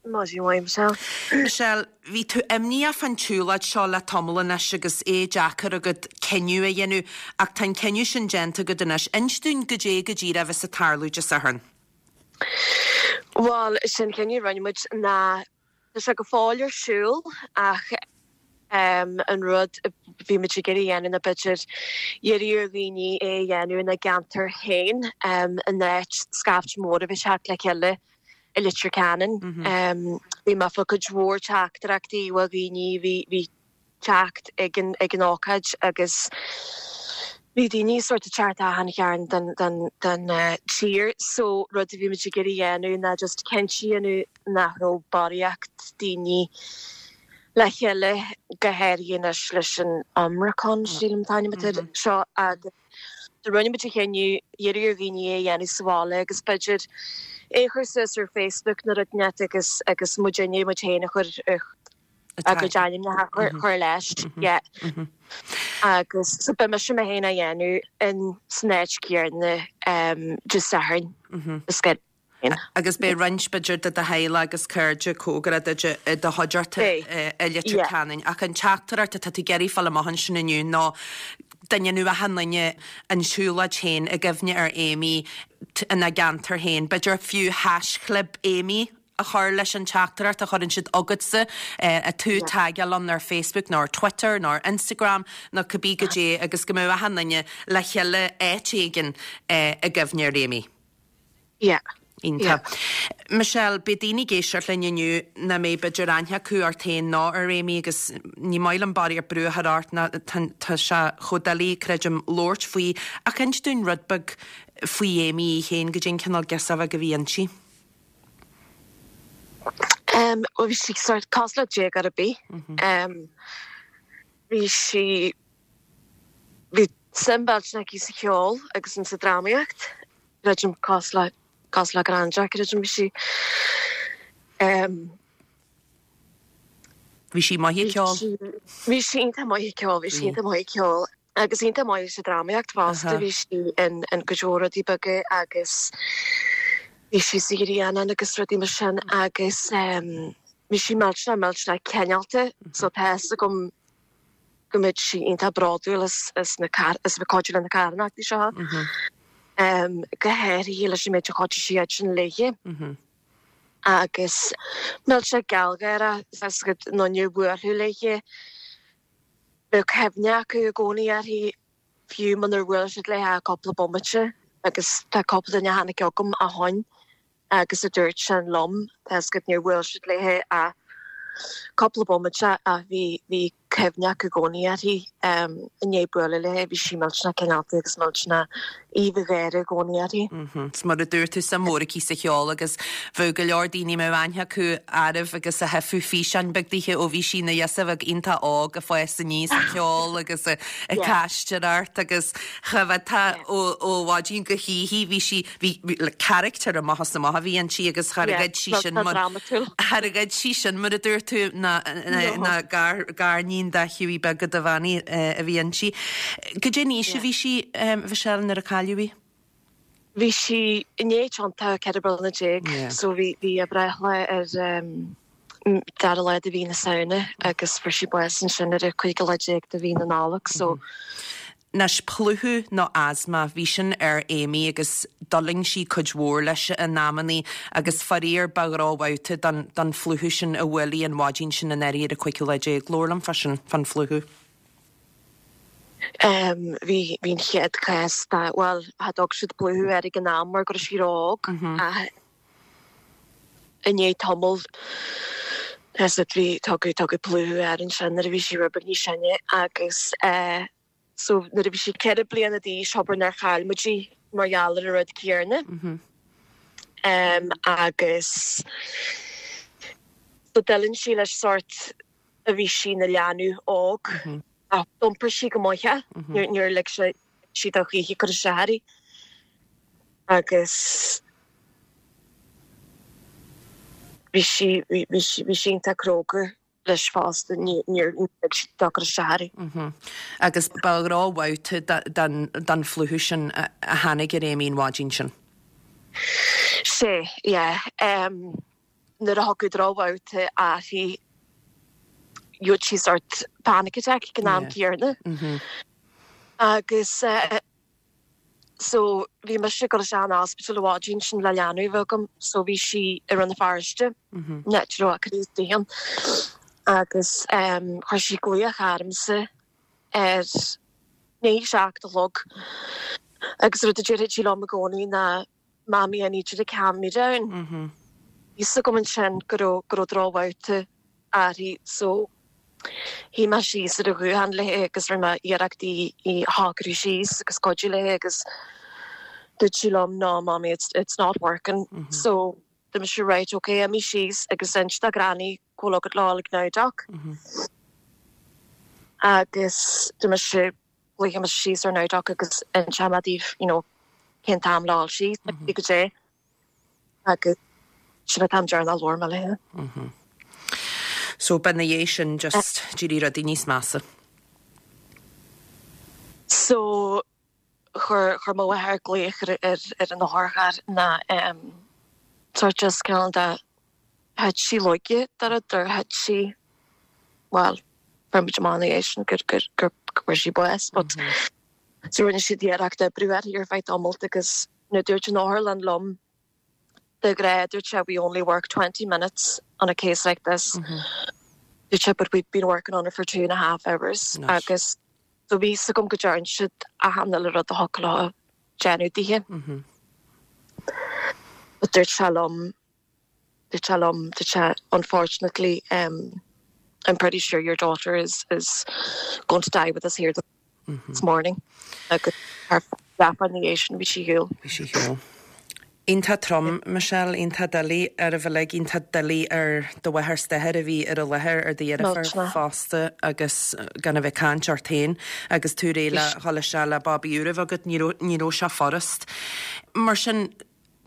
Maidin mhaith, Michelle. Michelle, bhí tú imníoch fán tsiúlóid seo le tamall anois agus é deacair agat cinneadh a dhéanamh, ach tá an cinneadh sin déanta agat anois. Inis dúinn goidé go díreach a bheas ag tarlú Dé Sathairn. Bhuel, sin cinneadh a rinne muid ná tá sé go fóill ar siúl ach an rud a bhí muid ag iarraidh a dhéanamh ná b'fhéidir iarraidh ar dhaoine é a dhéanamh ina gceantar féin in áit scaifte mór a bheith ag teacht le chéile i Leitir Ceanainn. Bhí mé ag fáil cuid mhór teachtaireachtaí ó dhaoine a bhí ag teacht ag an ag an ócáid agus bhí daoine sort ag teacht achan chearn den den den tír so rud a bhí muid ag iarraidh a dhéanamh ná just cinnte a dhéanamh nach raibh barraíocht daoine le chéile go háirithe anois leis an Omicron sílim an t-ainm atá air seo agus Do rinne muid an chinneadh iarraidh ar dhaoine é a dhéanamh sa bhaile agus b'fhéidir é a chur suas ar Facebook nó rud inteacht agus agus muidinne muid féin a chur a gcuid ainmneacha a chur leis. Yeah. Agus so beidh mise mé féin á dhéanamh in san áit chéanna Dé Sathairn. Is Agus beidh roinnt, b'fhéidir, de do theaghlach agus cairde cóngarach duit i do chuideachta i Leitir Ceanainn. Ach an teachtaireacht atá tú ag iarraidh fáil amach ansin inniu ná go ndéanfadh achan duine an tsiúlóid féin i gcuimhne ar Amy ina gceantar féin. B'fhéidir fiú haischlib Amy a chur leis an teachtaireacht a chuireann siad chugatsa, tú a tagáil ann ar Facebook nó ar Twitter nó ar Instagram nó cibé goidé agus go mbeadh achan duine le chéile áit éigin i gcuimhne ar Amy. Yeah. Iontach. Michelle, beidh daoine ag éisteacht linn inniu nach mbeidh b'fhéidir aithne acu ort féin ná ar Amy agus ní maith liom barraíocht brú a chur ort ná tá sé chomh doiligh, creidim, labhairt faoi ach inis dúinn rud beag faoi Amy í féin, goidé an cineál girseach bheag a bhí inti. Um, bhuel bhí sí sort cosúil le déagóir ar bith. Um, bhí sí Bhí suim mhillteanach aici sa cheol agus in sa drámaíocht, creidim, cosúil le, cosúil le gnáthduine, creidim, bhí sí ehm. Bhí sí maith ag ceol? Bhí sí iontach maith ag ceol, bhí sí iontach maith ag ceol agus iontach maith sa drámaíocht fosta, bhí sí in in cuid mhór rudaí beaga agus bhí sí sa Ghrianán agus rudaí mar sin agus ehm bhí sí millteanach millteanach cineálta so tá fhios agam go mbeadh sí iontach bródúil as as na as a bheith cuidiú le na carthanachtaí seo, go háirithe leis an méid a chuidigh sí iadsan léithe. Agus millteanach gealgháireach, tá fhios agat aon duine a bhuailfeadh léithe, bheadh cuimhne acu i gcónaí uirthi, fiú munar bhuail siad léithe ach cúpla bomaite, agus tá cúpla duine a tháinig chugam ó shoin agus a dúirt sin liom, tá fhios agat, níor bhuail siad léithe ach cúpla bomaite ach bhí, bhí. cuimhneach i gcónaí uirthi. I ndiaidh bualadh léi, bhí sí millteanach cineálta agus millteanach aoibh an gháire i gcónaí uirthi. 'S mar a dúirt tú, suim mhór aici sa cheol agus bheadh go leor daoine a mbeadh aithne acu uirthi agus a thaifeadh físeáin beag dithe ó bhí sí ina ghirseach bheag iontach óg ag fás aníos ag ceol agus ag aisteoireacht agus cha bhféadfá ó mhaidin go hoíche bhí sí Bhí, like, character amach is amach a bhí inti agus char ghoid sí sin mar, char ghoid sí sin mar a dúirt tú ná, ná gar, gariníon de Hughie beag go Duibheannaigh a bhí inti. Goidé an aois a bhí sí, Michelle, nuair a cailleadh í? Bhí sí i ndiaidh tiontú 14 bliana so bhí, bhí a breithlá ar dara lá de mhí na Samhna agus fuair sí bás ansin ar an cúigiú lá déag de mhí na Nollag so. Anois, plúchadh nó asma, bhí sin ar Amy agus d'fhulaing sí cuid mhór leis in amannaí agus faraor ba dhrochbhabhta don don phlúchadh sin a bhuail í an mhaidin sin anuraidh ar an cúigiú lá déag. Labhair liom fá sin, fán phlúchadh. Em, bhí, bhí an chéad chás de, bhuel, cha dtug siad plúchadh air ag an am mar go raibh sí ró-óg ach i ndiaidh tamaill, is it, bhí, tugadh, tugadh plúchadh air ansin nuair a bhí sí rud beag níos sine agus eh, So nuair a bhí sí 4 bliana d'aois abair nár chaill muid í mar gheall ar an rud céanna. Agus so d'fhulaing sí leis sórt a bhí sí ina leanbh óg ach d'iompair sí go maith é, níor lig sí dó choíche cur isteach uirthi. Agus bhí sí, bhí sí, bhí sí iontach cróga. leis fosta, níor lig sí dó cur isteach uirthi. Agus ba dhrochbhabhta den phlúchadh sin a tháinig ar Amy an mhaidin sin. Sea, yeah. Nuair a thiocfadh drochbhabhta uirthi, gheobhadh sí sórt panic attack ag an am céanna. Agus. So bhí mise ag dul isteach an ospidéal an mhaidin sin le leanbh a bheith agam so bhí sí i Rann na Feirste, an áit a raibh a cur istigh ann agus chuir sí glaoch ormsa ar i ndiaidh a 7 a chlog agus rud a déarfadh sí liom i gcónaí ná Mommy I need you to calm me down. Bhí fhios agam ansin go raibh go raibh drochbhabhta uirthi so shuigh mé síos ar an ghuthán léi agus rinne mé iarracht í í a shocrú síos agus cuidiú léi agus dúirt sí liom no mommy it's it's not working so dúirt mise right ok imigh síos agus inis do Granny go bhfuil agat le dhul ag Nowdoc agus dúirt mise Glaofaidh mise síos ar Nowdoc agus inseoidh mé daoibh you know cén t-am le dhul síos agus goidé agus sin an t-am deireanach a labhair mé léi. So ba ina dhiaidh sin just d'éirigh rudaí níos measa. So chuir chuir mo mháthair glaoch ar ar ar an otharcharr ná em sort just cineál de thit sí laige de rud or thit sí bhuel fuair muid amach ina dhiaidh sin gur gur gur go bhfuair sí bás but so rinne siad iarracht oibriú uirthi ar feadh tamalt agus nuair dúirt an otharlann liom de ghnáth dúirt sé we only work 20 minutes on a case like this dúirt sé but we've been working on it for two and a half hours agus so bhí fhios agam go dtearn siad achan uile rud a thiocfadh leo déanamh dithe but dúirt sé liom Dúirt sé liom, dúirt sé, unfortunately um I'm pretty sure your daughter is is going to die with us here this morning agus thar leathuair ina dhiaidh sin bhí sí ar shiúl. Bhí sí ar shiúl. Iontach trom, Michelle, iontach doiligh oraibh uilig, iontach doiligh ar do mháthair 's d'athair a bhí ar an láthair, ar do dheirfiúr fosta agus gan a bheith ag caint ort féin agus tú réidh le dhul isteach le babaí úr a bheith agat, ní raibh, ní raibh sé furast. Mar sin,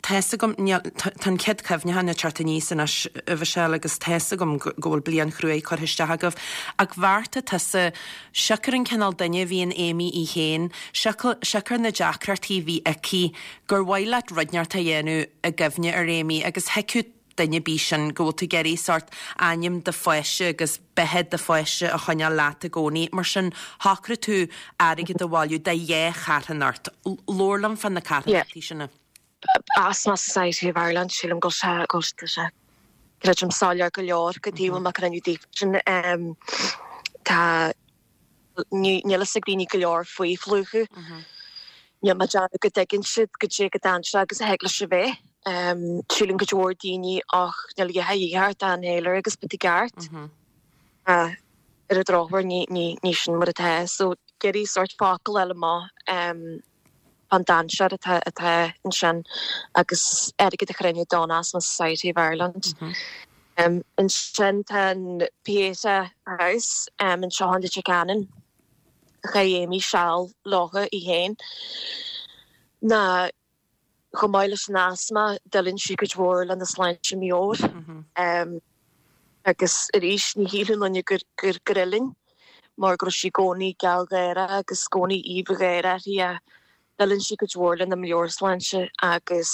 Tá's agam, níl, tá an chéad chuimhneachán ag teacht aníos anois, a Mhichelle, agus tá's agam go bhfuil bliain chruaidh curtha isteach agaibh, ach bheartaigh tusa, siocair an cineál duine a bhí in Amy í féin, siocair na deacrachtaí a bhí aici, gur mhaith leat rud inteacht a dhéanamh i gcuimhne ar Amy agus thuigfeadh duine ar bith sin, go bhfuil tú ag iarraidh sórt ainm do pháiste agus beatha do pháiste a choinneáil leat i gcónaí. Mar sin, shocraigh tú airgead a bhailiú do dhá charthanacht. Labhair liom fá na carthanachtaí sin. Asthma Society of Ireland, sílim go bhfuil sé, go bhfuil sé, creidim, soiléir go leor goidé a bhfuil mé ag déanamh daofa sin. Tá, níl fhios ag daoine go leor faoi phlúchadh. Níl mé ag déanamh go dtuigeann siad goidé chomh dainséarach agus a thig leis a bheith. Síleann cuid mhór daoine ach níl a dhath a dhíth ort ach inhaler agus beidh tú i gceart. Ar an drochuair ní, ní, ní sin mar atá. So ag iarraidh sórt focal a fháil amach fán dainséar atá, atá ansin agus airgead a chruinniú don Asthma Society of Ireland. Ansin tá an Pieta House anseo in Leitir Ceanainn. Chaith Amy seal leofa í féin. Ná chomh maith leis an asma, deileann sí cuid mhór lena sláinte meabhair. Agus arís, ní shílfeadh aon duine gur gur fhuilaing mar go raibh sí i gcónaí gealgháireach agus i gcónaí aoibh gháire uirthi ach deileann sí cuid mhór lena meabhairshláinte agus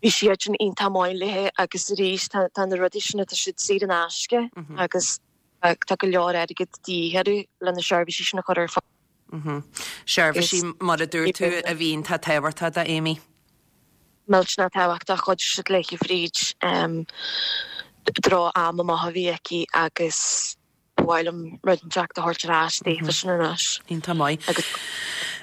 bhí siad iontach maith léi agus arís tá na rudaí sin tá siad saor in aisce agus tá go leor airgid de dhíth orthu le na seirbhísí sin a chur ar fáil. Seirbhísí, mar a dúirt tú, a bhí iontach tábhachtach do Amy. Millteanach tábhachtach, chuidigh siad léi fríd droch-am amach a bhí aici agus ba mhaith liom rud inteacht a thabhairt ar ais daofa sin anois. Iontach maith. Agus.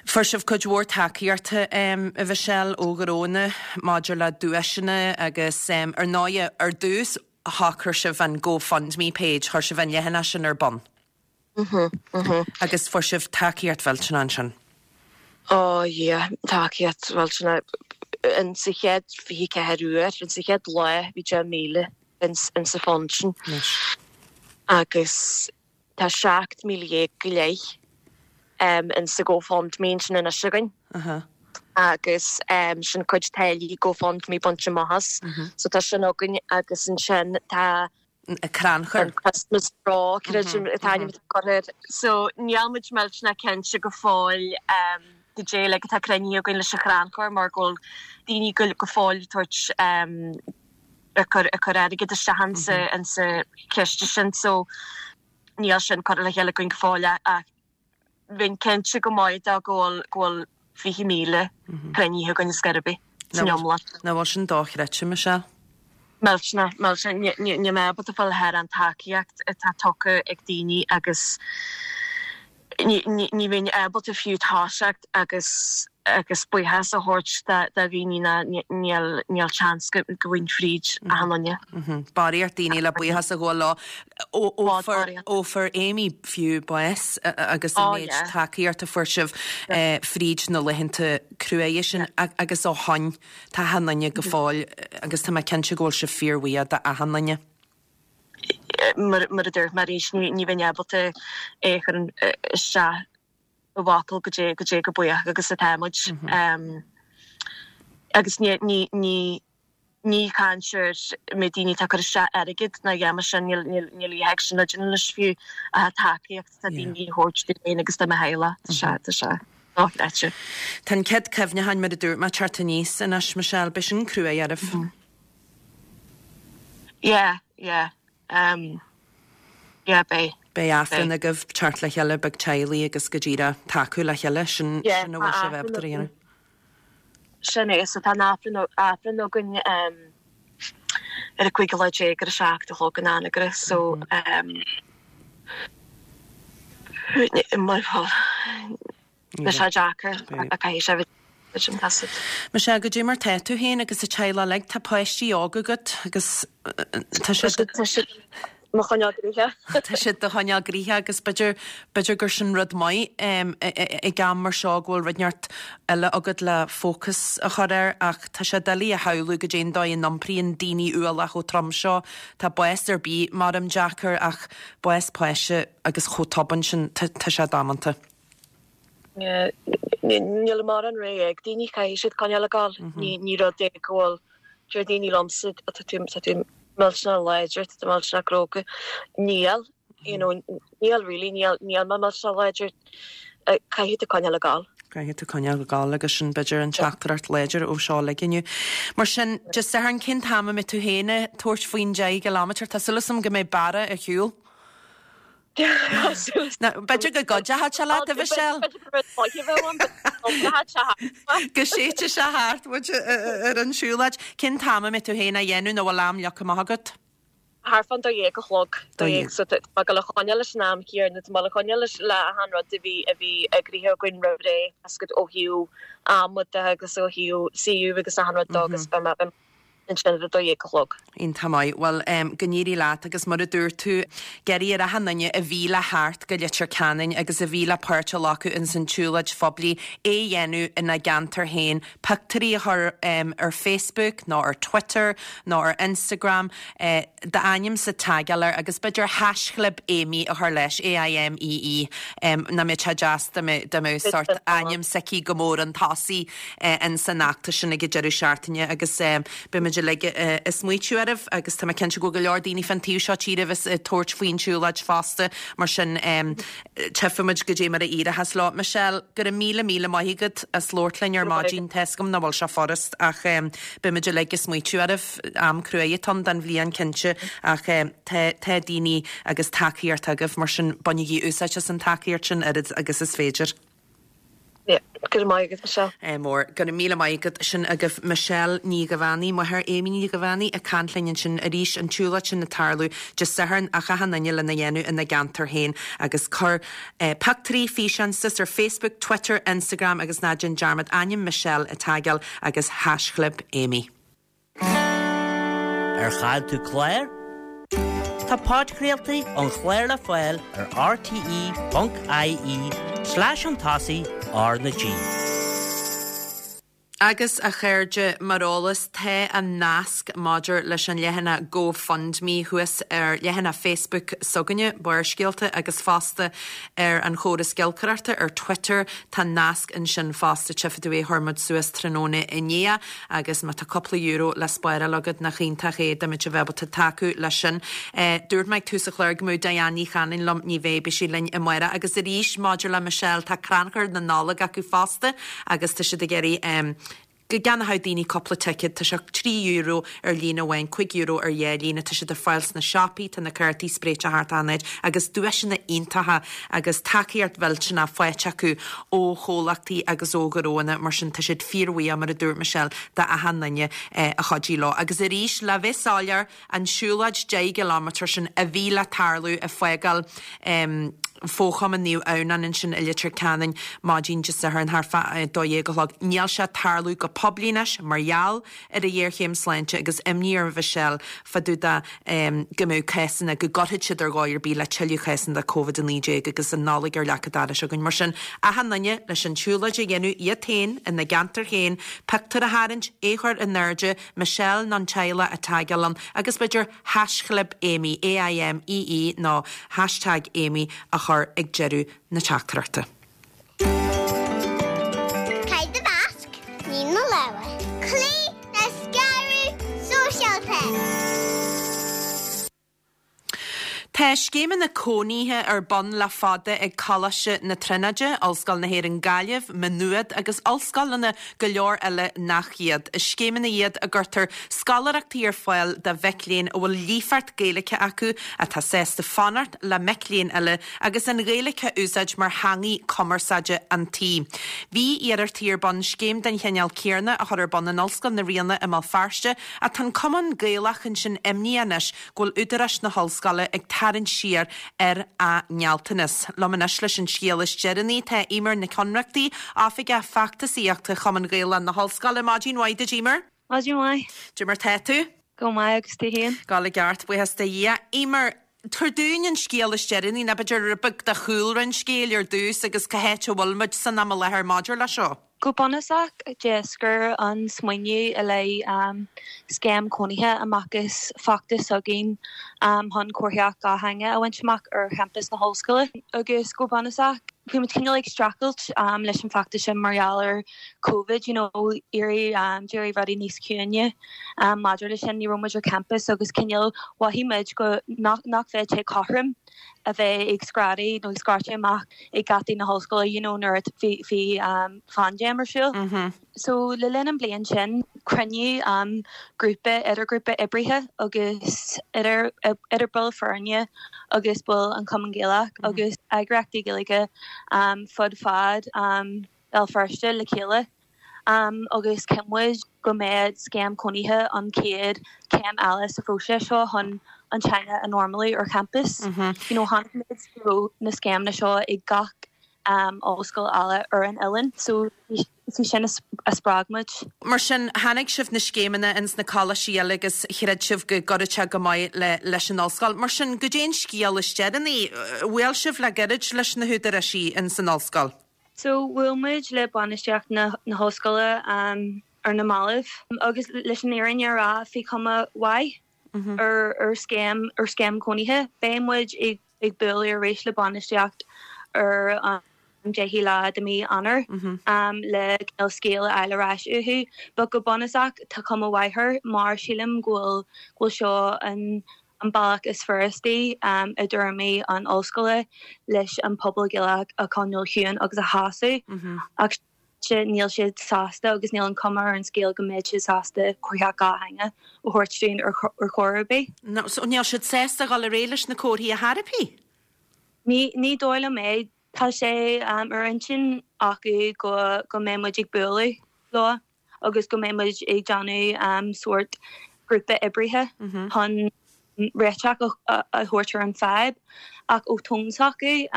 Fuair sibh cuid mhór tacaíochta, a Mhichelle, ó ghnónna maidir le duaiseanna agus, ar ndóighe, ar dtús, shocraigh sibh an GoFundMe page, chuir sibh an leathanach sin ar bun. Agus fuair sibh tacaíocht mhillteanach ansin. Oh yeah, tacaíocht mhillteanach. In sa chéad 24 uair, in sa chéad lá, bhí 10,000 in sa fund sin. Agus tá 17,000 go leith in sa GoFundMe ansin anois againn. Agus sin cuid táillí GoFundMe bainte amach as. So tá sin againn agus ansin tá crannchur. An Christmas Draw, creidim an t-ainm atá curtha air. So níl muid millteanach cinnte go fóill goidé uilig atá cruinnithe againn leis an chrannchur mar go bhfuil daoine go go fóill ag tabhairt ag cur ag cur airgead isteach insa insa chiste sin so níl sin curtha le chéile againn go fóill ach bheinn cinnte go maith de go bhfuil go bhfuil 20,000 cruinnithe againn ar scor ar bith san iomlán. Nach bhfuil sin dochreidte, Michelle? Millteanach, millteanach. Níl mé ábalta fáil thar an tacaíocht atá tugtha ag daoine agus ní bheinn ábalta fiú toiseacht agus agus buíochas a thabhairt do dhaoine ná níl níl seans go bhfaighinn fríd achan duine. Barraíocht daoine le buíochas a ghabháil leo. Ó fuair Amy fiú bás agus an méid tacaíocht a fuair sibh fríd na laethanta cruaidhe sin agus ó shoin tá achan duine go fóill agus tá mé cinnte go bhfuil sibh fíorbhuíoch d'achan duine. Mar a dúirt mé arís ní bheinn ábalta é a chur isteach i bhfocail goidé goidé chomh buíoch agus atá muid. Agus ní ní ní ní caint ar méid daoine atá ag cur isteach airgead ná a dhath mar sin, níl níl níl a dhath sin le déanamh anois fiú ach an tacaíocht atá daoine a thabhairt dúinn féin agus do mo theaghlach, tá sé tá sé dochreidte. Tá an chéad cuimhneacháin mar a dúirt mé ag teacht aníos anois Michelle, beidh sin cruaidh oraibh. Yeah, yeah. Um, yeah, beidh. Beidh aifreann agaibh, teacht le chéile beag teaghlaigh agus go díreach tacú le chéile, sin sin a bhfuil sibh ábalta a dhéanamh. Sin é, so tá an aifreann aifreann againn um, ar an 15 lá ar a 7 a chlog in Anagaire, so um, mar Beidh sé deacair ach caithfidh sé bheith sin taifead. Michelle, goidé mar tá tú féin agus an teaghlach uilig, tá páistí óga agat agus tá siad. Tá siad mo choinneáil gnoitheach. Tá siad do choinneáil gnoitheach agus b'fhéidir, b'fhéidir gur sin rud maith ag am mar seo go bhfuil rud inteacht eile agat le fócas a chur air ach tá sé doiligh a shamhlú goidé an dóigh a n-iompraíonn daoine ualach chomh trom seo. Tá bás ar bith maram deacair ach bás páiste agus chomh tobann sin, tá sé damanta. Níl mórán rogha ag daoine, caithfidh siad coinneáil ag gabháil. Ní rud é go bhfuil, deir daoine liomsa, tá tú tá tú millteanach láidir, tá tú millteanach cróga. Níl, you know, níl really, níl níl mé millteanach láidir. Caithfidh tú coinneáil ag gabháil. Caithfidh tú coinneáil ag gabháil agus sin b'fhéidir an teachtaireacht láidir ó seo uilig inniu. Mar sin, Dé Sathairn, cén t-am a mbeidh tú féin ag tabhairt faoin 10 gcileámeter? Tá súil agam go mbeidh bearradh ar shiúl. B'fhéidir go gcuideochadh sé leat, a Mhichelle. Go séidfidh sé thart muid ar an siúlóid. Cén t-am a mbeidh tú féin á dhéanamh nó bhfuil am leagtha amach agat? Thart fán dó dhéag a chlog. Dó dhéag. So tá mé ag dul a choinneáil leis an am céanna, tá mé ag dul a choinneáil leis le achan rud a bhí a bhí eagraithe againn roimh ré, tá a fhios agat ó thaobh ama de agus ó thaobh suíomh agus achan rud de agus beidh mé. Ansin ar 12 a chlog. Iontach maith. Bhuel, go n-éirí leat agus mar a dúirt tú, ag iarraidh ar achan duine a bhí le theacht go Leitir Ceanainn agus a bhí le páirt a ghlacadh ins an tsiúlóid phoiblí é a dhéanamh ina gceantar féin, pictiúirí a chur ar Facebook nó ar Twitter nó ar Instagram, d'ainmse a tagáil air agus b'fhéidir haischlib Aimee a chur leis, A-I-M-E-E, nach mbeadh sé deas dá mbeadh sórt ainm s'aici go mór chun tosaigh ins an fheachtas sin ag an deireadh seachtaine agus beidh muid uilig ag smaoitiú oraibh agus tá mé cinnte go bhfuil go leor daoine fán taobh seo tíre a bheas ag tabhairt faoin tsiúlóid fosta mar sin tchífidh muid goidé mar a éireochas leo. Michelle, go raibh míle míle maith agat as labhairt linn ar maidin. Tá 'fhios agam nach bhfuil sé furast ach beidh muid uilig ag smaoitiú oraibh. Am cruaidh atá ann don bhliain cinnte ach tá tá daoine agus tacaíocht agaibh mar sin bainigí úsáid as an tacaíocht sin oiread agus is féidir. Yeah, go raibh maith agat, Michelle. Ádh mór. Go raibh míle maith agat. Sin agaibh Michelle Ní Dhuibheannaigh, máthair Aimee Ní Dhuibheannaigh, ag caint linn ansin arís, an tsiúlóid sin ag tarlú Dé Sathairn ach achan duine lena dhéanamh ina gceantar féin agus cuir pictiúirí, físeáin suas ar Facebook, Twitter, Instagram agus ná déan dearmad ainm Michelle a tagáil agus haischlib Aimee. Ar chaill tú clár? Tá podchraoltaí an chláir le fáil ar rte.ie slash chun tosaigh R na G. Agus, a chairde, mar eolas, tá an nasc maidir leis an leathanach GoFundMe thuas ar leathanach Facebook s'againne, Barrscéalta, agus fosta ar an chóras giolcaireachta ar Twitter, tá nasc ansin fosta, tchífidh tú é, chuir muid suas tráthnóna inné. Agus má tá cúpla euro le spáráil agat, nach iontach é dá mbeadh bheith ábalta tacú leis sin. Dúirt mé ag tús an chláir go mbeadh Diane Ní Chanainn liom, ní bheidh, beidh sí linn amárach. Agus arís, maidir le Michelle, tá crannchur na Nollag acu fosta agus tá siad ag iarraidh go gceannódh daoine cúpla ticéad. Tá sé €3 ar líne amháin, €5 ar dhá líne. Tá siad ar fáil sna siopaí, tá na cártaí spréite thart achan áit agus duaiseanna iontacha agus tacaíocht mhillteanach faighte acu ó chomhlachtaí agus ó ghnóanna, mar sin tá siad fíorbhuíoch, mar a dúirt Michelle, d'achan duine a chuidigh leo. Agus arís, le bheith soiléir, an siúlóid 10 gcileámetar sin a bhí le tarlú ag fágáil Fho-Chumann Naomh Adhamhnáin ansin i Leitir Ceanainn maidin Dé Sathairn thart fá 12 a chlog, níl sé ag tarlú go poiblí anois mar gheall ar an ghéarchéim sláinte agus imní ar Mhichelle fá dtaobh de go mbeadh cásanna, go gcuirfeadh siad ar dhóigh ar bith le tuilleadh cásanna de Covid-19 agus an Nollaig ar leac an dorais againn. Mar sin, achan duine leis an tsiúlóid a dhéanamh iad féin, ina gceantar féin, pictiúr a tharraingt, é a chur in airde, Michelle nó an teaghlach a tagáil ann agus b'fhéidir haischlib Aimee, A-I-M-E-E, nó hashtag Aimee a chur ag deireadh na teachtaireachta. Caith do mhasc, nigh na lámha. Cloígh le scaradh sóisialta. Tá scéimeanna cónaithe ar bun le fada ag Coláiste na Tríonóide, Ollscoil na hÉireann Gaillimh, Maigh Nuad agus ollscoileanna go leor eile nach iad. Is scéimeanna iad a gcuirtear scoláireachtaí ar fáil do mhic léinn a bhfuil líofacht Gaeilge acu, atá sásta fanacht le mic léinn eile agus an Ghaeilge a úsáid mar theangaidh cumarsáide an tí. Bhí iarrachtaí ar bun scéim den chineál céarna a chur ar bun in Ollscoil na Ríona i mBéal Feirste ach tá an Cumann Gaelach ansin imníoch anois go bhfuil údaráis na hollscoile ag tarraingt siar ar a ngealltanas. Liom anois leis an scéal is deireanaí tá Eimear Nic Ionnrachtaigh, Oifigeach Feachtasaíochta Chumann Gaelach na hOllscoile. Maidin mhaith duit, Eimear. Maidin mhaith. Cad é mar tá tú? Go maith agus tú féin? Ag gabháil i gceart, buíochas do Dhia. Eimear, tabhair dúinn an scéal is deireanaí, nó b'fhéidir rud beag de chúlra an scéil ar dtús agus cá háit a bhfuil muid san am i láthair maidir leis seo. Go bunúsach, d'éascair an smaoineamh i leith scéim cónaithe amach as feachtas s'againn chun comharthaíocht dhátheangach a bhaint amach ar champas na hollscoile. Agus go bunúsach, bhí muid cineál ag streachailt leis an bhfeachtas sin mar gheall ar Covid, you know, d'éirigh d'éirigh rudaí níos ciúine maidir leis sin, ní raibh muid ar campas agus cineál mhothaigh muid go nach nach bheadh sé cothrom a bheith ag screadaigh nó ag scairteadh amach ag geataí na hollscoile you know nuair a bhí bhí paindéim ar siúl. So le linn an bliain sin cruinníodh grúpa idirghrúpa oibrithe agus idir idir baill foirne agus baill an Chumann Gaelach agus eagraíochtaí Gaeilge fud fad Béal Feirste le chéile agus chinn muid go mbeadh scéim cónaithe an chéad chéim eile sa phróiseas seo chun an teanga a normalú ar champas. You know, chonaic muid go raibh na scéimeanna seo ag gach. Ollscoil eile ar an oileán. So is í sin a spreag muid. Mar sin, chonaic sibh na scéimeanna ins na coláistí eile agus chreid sibh go gcuirfeadh sé go maith le leis an ollscoil. Mar sin, goidé an scéal is deireanaí? Bhuail sibh le gairid leis na húdaráisí ins an ollscoil? So, bhuail muid le bainistíocht na hollscoile ar na mallaibh agus leis an fhírinne a rá, bhí cuma mhaith ar ar scéim ar scéim cónaithe. Beidh muid ag ag bualadh arís le bainistíocht ar an 10ú lá de mí Eanáir le cineál scéal a fháil ar ais uathu. But go bunúsach tá cuma mhaith air mar sílim go bhfuil go bhfuil seo an an bealach is furastaí i dtuairimí an ollscoile leis an pobal Gaelach a choinneáil ciúin agus a shásamh. Ach níl siad sásta agus níl an cuma ar an scéal go mbeidh siad sásta comharthaíocht dhátheangach a thabhairt dúinn ar chor ar bith. So níl siad sásta dhul ar aghaidh leis na comharthaí ar chor ar bith? Ní dóigh liom é. Tá sé ar intinn acu go go mbeidh muid ag bualadh leo agus go mbeidh muid ag déanamh sórt grúpa oibrithe chun réiteach a thabhairt ar an fadhb ach ó tón s'acu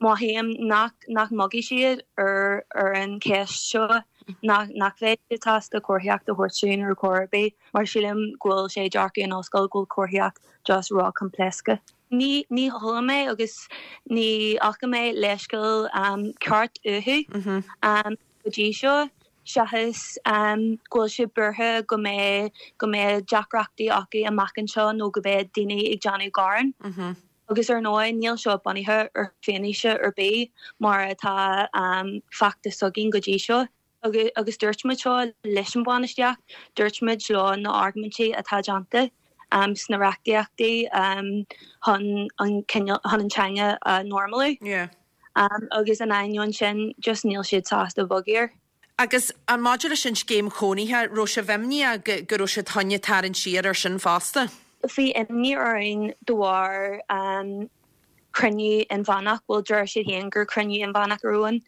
Mothaím nach nach mbogfaidh siad ar ar an cheist seo, nach nach bheidh siad sásta comharthaíocht a thabhairt dúinn ar chor ar bith, mar sílim go bhfuil sé dearcadh an ollscoil go bhfuil comharthaíocht just ró-choimpléasctha. Ní ní chuala mé agus ní fhaca mé leithscéal ceart uathu go dtí seo, seachas go bhfuil siad buartha go mbeidh go mbeidh deacrachtaí acu amach anseo nó go mbeidh daoine ag déanamh gearán. Agus ar ndóigh, níl seo bunaithe ar fianaise ar bith mar atá feachtas s'againn go dtí seo. Agus dúirt muid seo leis an bhainistíocht, dúirt muid leo na argóintí atá déanta sna reachtaíochtaí chun an cineál, chun an teanga a normalú. Agus in ainneoin sin, just níl siad sásta bogadh air. Agus maidir leis an scéim chónaithe, raibh sibh imníoch go raibh siad chun tarraingt siar ar sin fosta? Bhí imní orainn de bharr cruinniú inmheánach, bhuel deir siad féin gur cruinniú inmheánach a raibh ann,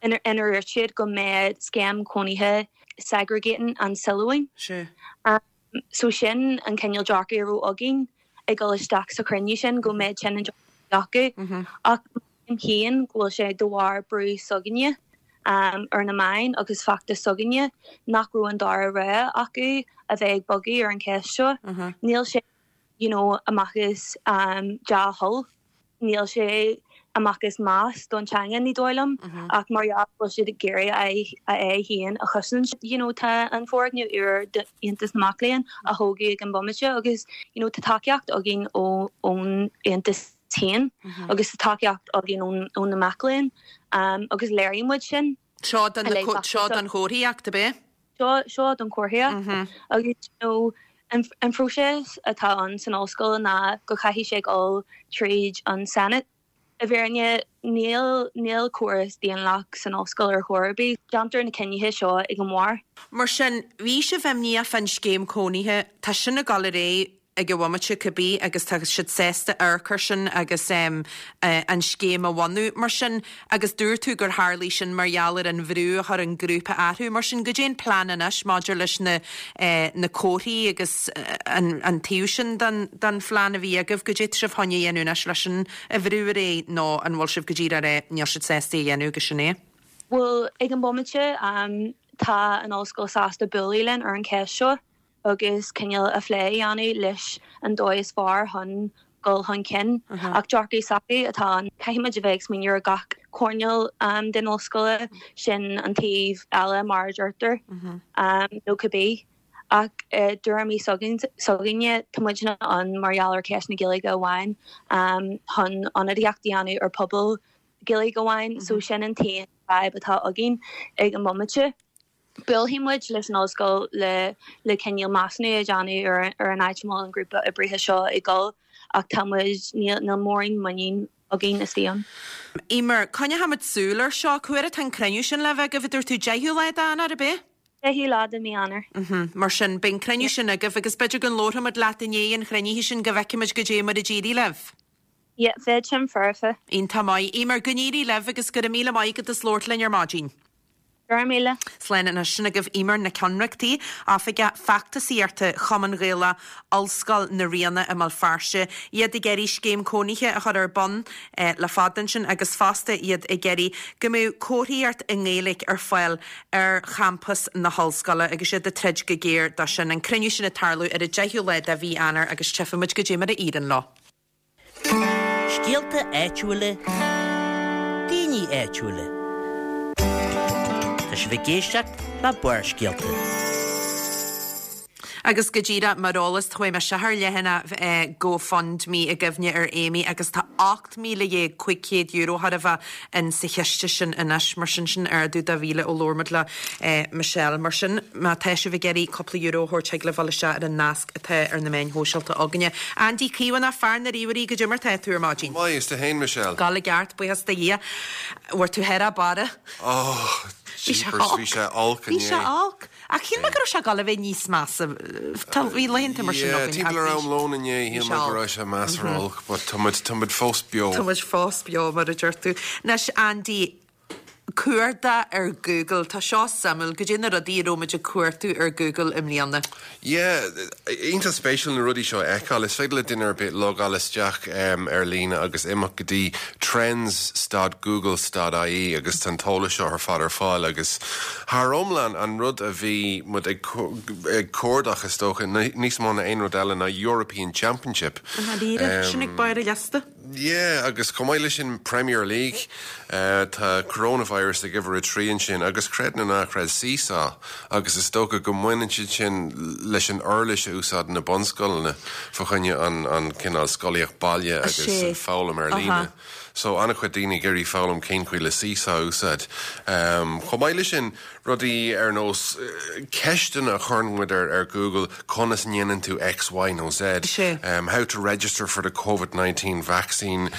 inar dhúirt siad go mbeadh scéim chónaithe segregating an Suilleabháin. So sin an cineál dearcadh a raibh againn ag dul isteach sa chruinniú sin, go mbeadh sin an dearcadh acu. Ach mothaím féin go bhfuil sé de bharr brú s'againne ar na meáin agus feachtas s'againne nach raibh an dara rogha acu a bheith ag bogadh ar an cheist seo. Níl sé you know amach as dea-thoil. Níl sé amach as meas don teanga, ní dóigh liom, ach mar gheall go bhfuil siad ag iarraidh a aghaidh féin a chosaint. You know tá an foirgneamh úr d'Aontas na Mac Léinn á thógadh ag an bomaite agus you know tá tacaíocht againn ó ón Aontas féin agus tá tacaíocht againn ón ó na mac léinn agus léirigh muid sin. Seo don seo don chomharthaíocht, ab é? Seo seo don chomharthaíocht agus you know an an phróiseas atá ann san ollscoil ná go chaithfidh sé dul tríd an Senate. I bhfírinne níl níl córas daonlathach san ollscoil ar chor ar bith. Déantar na cinnithe seo ag an mbarr. Mar sin, bhí sibh imníoch fán scéim cónaithe, tá sin ag dul ar aghaidh ag an bhomaite cibé agus tá siad sásta amharc air sin agus an scéim a bhunú. Mar sin, agus dúirt tú gur tharlaigh sin mar gheall ar an bhrú a chuir an grúpa orthu, mar sin, goidé an plean anois maidir leis na na comharthaí agus an an taobh sin den den phlean a bhí agaibh, goidé tá sibh chun a dhéanamh anois leis sin a bhrú ar aghaidh nó an bhfuil sibh go díreach ag rá níl siad sásta é a dhéanamh agus sin é? Bhuel, ag an bomaite, tá an ollscoil sásta bualadh linn ar an cheist seo. agus cineál a phlé a dhéanamh leis an dóigh is fearr chun dul chun cinn. Ach dearcadh s'acu atá ann. Caithfidh muid a bheith ag smaoineamh ar gach coirnéal den ollscoile, sin an taobh eile mar a deirtear, nó cibé. Ach i dtuairimí s'againne, tá muidne ann mar gheall ar cheist na Gaeilge amháin, chun ionadaíocht a dhéanamh ar pobal Gaeilge amháin, so sin an t-aon fhadhb atá againn ag an mbomaite. Buailfidh muid leis an ollscoil le le cineál measúnú a dhéanamh ar ar an áit a bhfuil an grúpa oibrithe seo ag dul ach tá muid, níl níl mórán muinín againn istigh ann. Eimear, coinneochaimid súil air seo. Cá huair atá an cruinniú sin le bheith agaibh, a dúirt tú, 10ú lá d'Eanáir, ab é? 10ú lá de mí Eanáir. Mar sin, beidh an cruinniú sin agaibh agus b'fhéidir go labharfaimid leat i ndiaidh an chruinnithe sin go bhfeicfimid goidé mar a d'éirigh libh. Yeah, bheadh sin foirfe. Iontach maith. Eimear, go n-éirí libh agus go raibh míle maith agat as labhairt linn ar maidin. Go raibh míle. Slán anois. Sin agaibh Eimear Nic Ionnrachtaigh, Oifigeach Feachtasaíochta Chumann Gaelach Ollscoil na Ríona i mBéal Feirste. Iad ag iarraidh scéim cónaithe a chur ar bun le fada ansin agus fosta iad ag iarraidh go mbeadh comharthaíocht i nGaeilge ar fáil ar champas na hollscoile agus iad ag troid go géar dó sin. An cruinniú sin ag tarlú ar an 10ú lá de mhí Eanáir agus tchífidh muid goidé mar a éiríonn leo. Scéalta áitiúla, daoine áitiúla. Tá sibh ag éisteacht le Barrscéalta. Agus go díreach mar eolas, chuaigh mé isteach ar leathanach GoFundMe i gcuimhne ar Amy agus tá €18,500 chóir a bheith in sa chiste sin anois. Mar sin, sin ardú de mhíle ó labhair muid le Michelle. Mar sin, má tá sibh ag iarraidh cúpla euro a thabhairt thig libh dul isteach ar an nasc atá ar na meáin shóisialta againne. Andy Caomhánach, fear na ríomhairí, goidé mar tá tú ar maidin? Go maith, is tú fhéin Michelle? Ag gabháil i gceart, buíochas do Dhia. Bhfuair tú thar a barra? Oh, jeepers, bhí sé olc inné. Bhí sé olc. Ach shíl mé go raibh sé ag gabháil a bheith níos measa. Tá, bhí laethanta mar sin againn. Yeah, timpeall ar am lóin inné, shíl mé go raibh sé measartha olc, but tá muid, tá muid fós beo. Tá muid fós beo, mar a deir tú. Anois, Andy, cuardach ar Google, tá seo suimiúil, goidé na rudaí a raibh muid ag cuartú ar Google i mbliana? Yeah, iontach spéisiúil na rudaí seo a fheiceáil. Is féidir le duine ar bith logáil isteach ar líne agus imeacht go dtí trends stad google stad ie agus tá an t-eolas seo ar fad ar fáil agus thar iomlán an rud a bhí muid ag cuardach is dócha níos mó ná aon rud eile ná European Championship. I ndáiríre, sin ag barr an liosta. Yeah, agus chomh maith leis sin Premier League, tá coronavirus ag uimhir a trí ansin agus creid nó ná creid Seesaw agus is dócha go mbaineann siad sin leis an uirlis a úsáideann na bunscoileanna fá choinne an an cineál scolaíocht baile agus an foghlaim ar líne. So an-chuid daoine ag iarraidh foghlaim cén chaoi le Seesaw a úsáid. Chomh maith leis sin, Rudaí ar nós ceisteanna a chuireann muid ar Google, conas a ndéanann tú X, Y nó Z, how to register for the Covid 19 vaccine,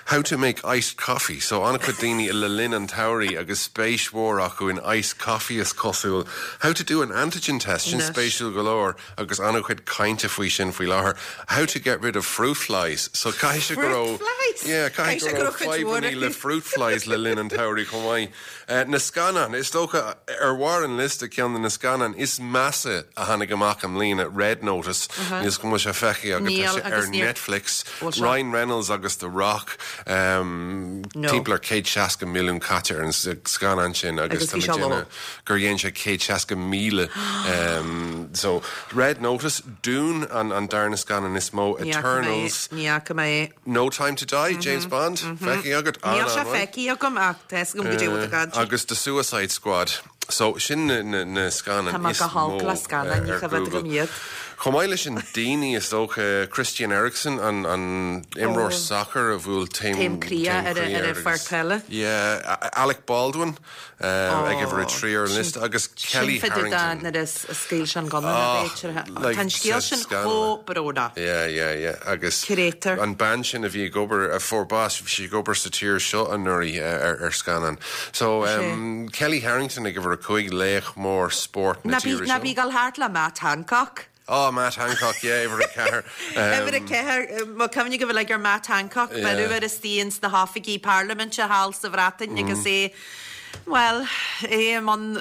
how to make iced coffee. So an-chuid daoine le linn an tsamhraidh agus spéis mhór acu in iced coffee is cosúil. How to do an antigen test, sin spéisiúil go leor agus an-chuid cainte faoi sin faoi láthair. How to get rid of fruit flies. So caithfidh sé go raibh, yeah, caithfidh go raibh fadhbanna le fruit flies le linn an tsamhraidh chomh maith. Na scannáin, is dócha, ar bharr an liosta, ceann de na scannáin is measa a tháinig amach i mbliana, Red Notice, níl 'fhios agam an bhfuil sé feicthe agat, tá sé ar Netflix, Ryan Reynolds agus The Rock, timpeall ar 160 milliún caite ar an scannán sin agus tá mé ag déanamh gur dhein sé 160,000. So, Red Notice, Dune, an darna scannán is mó, Eternals. Ní fhaca mé é. No Time to Die, James Bond, feicthe agat? Níl sé feicthe agam ach tá 'fhios agam goidé bhfuil tú ag caint. Agus The Suicide Squad. So, sin na scannáin Tá mé is go holc mó le scannáin, ní ar choimhéad Google. agam iad. Chomh maith leis sin, daoine, is dócha, Christian Eriksen, an imreoir sacair a bhuail taom Taom croí taom ar croí ar air an pháirc agus peile. yeah, Alec Baldwin, ag uimhir a 3 ar an liosta agus Kelly Harrington. Nuair a scaoil sé an gunna na b'fhéidir. Tá an scéal sin chomh brónach. Yeah, yeah, yeah. Agus an bean sin a bhí ag obair, a fuair bás, bhí sí ag obair sa tír seo anuraidh ar scannán. So, Kelly Harrington ag uimhir a 5, laoch mór spóirt na tíre seo. Ná bí ag dul thart le Matt Hancock. Oh, Matt Hancock, yeah, uimhir a ceathair. Uimhir a ceathair, mo cuimhne go bhfuil ag ar Matt Hancock, beireadh air istigh ins na hoifigí parlaiminte thall sa Bhreatain agus é, bhuel, é i mbun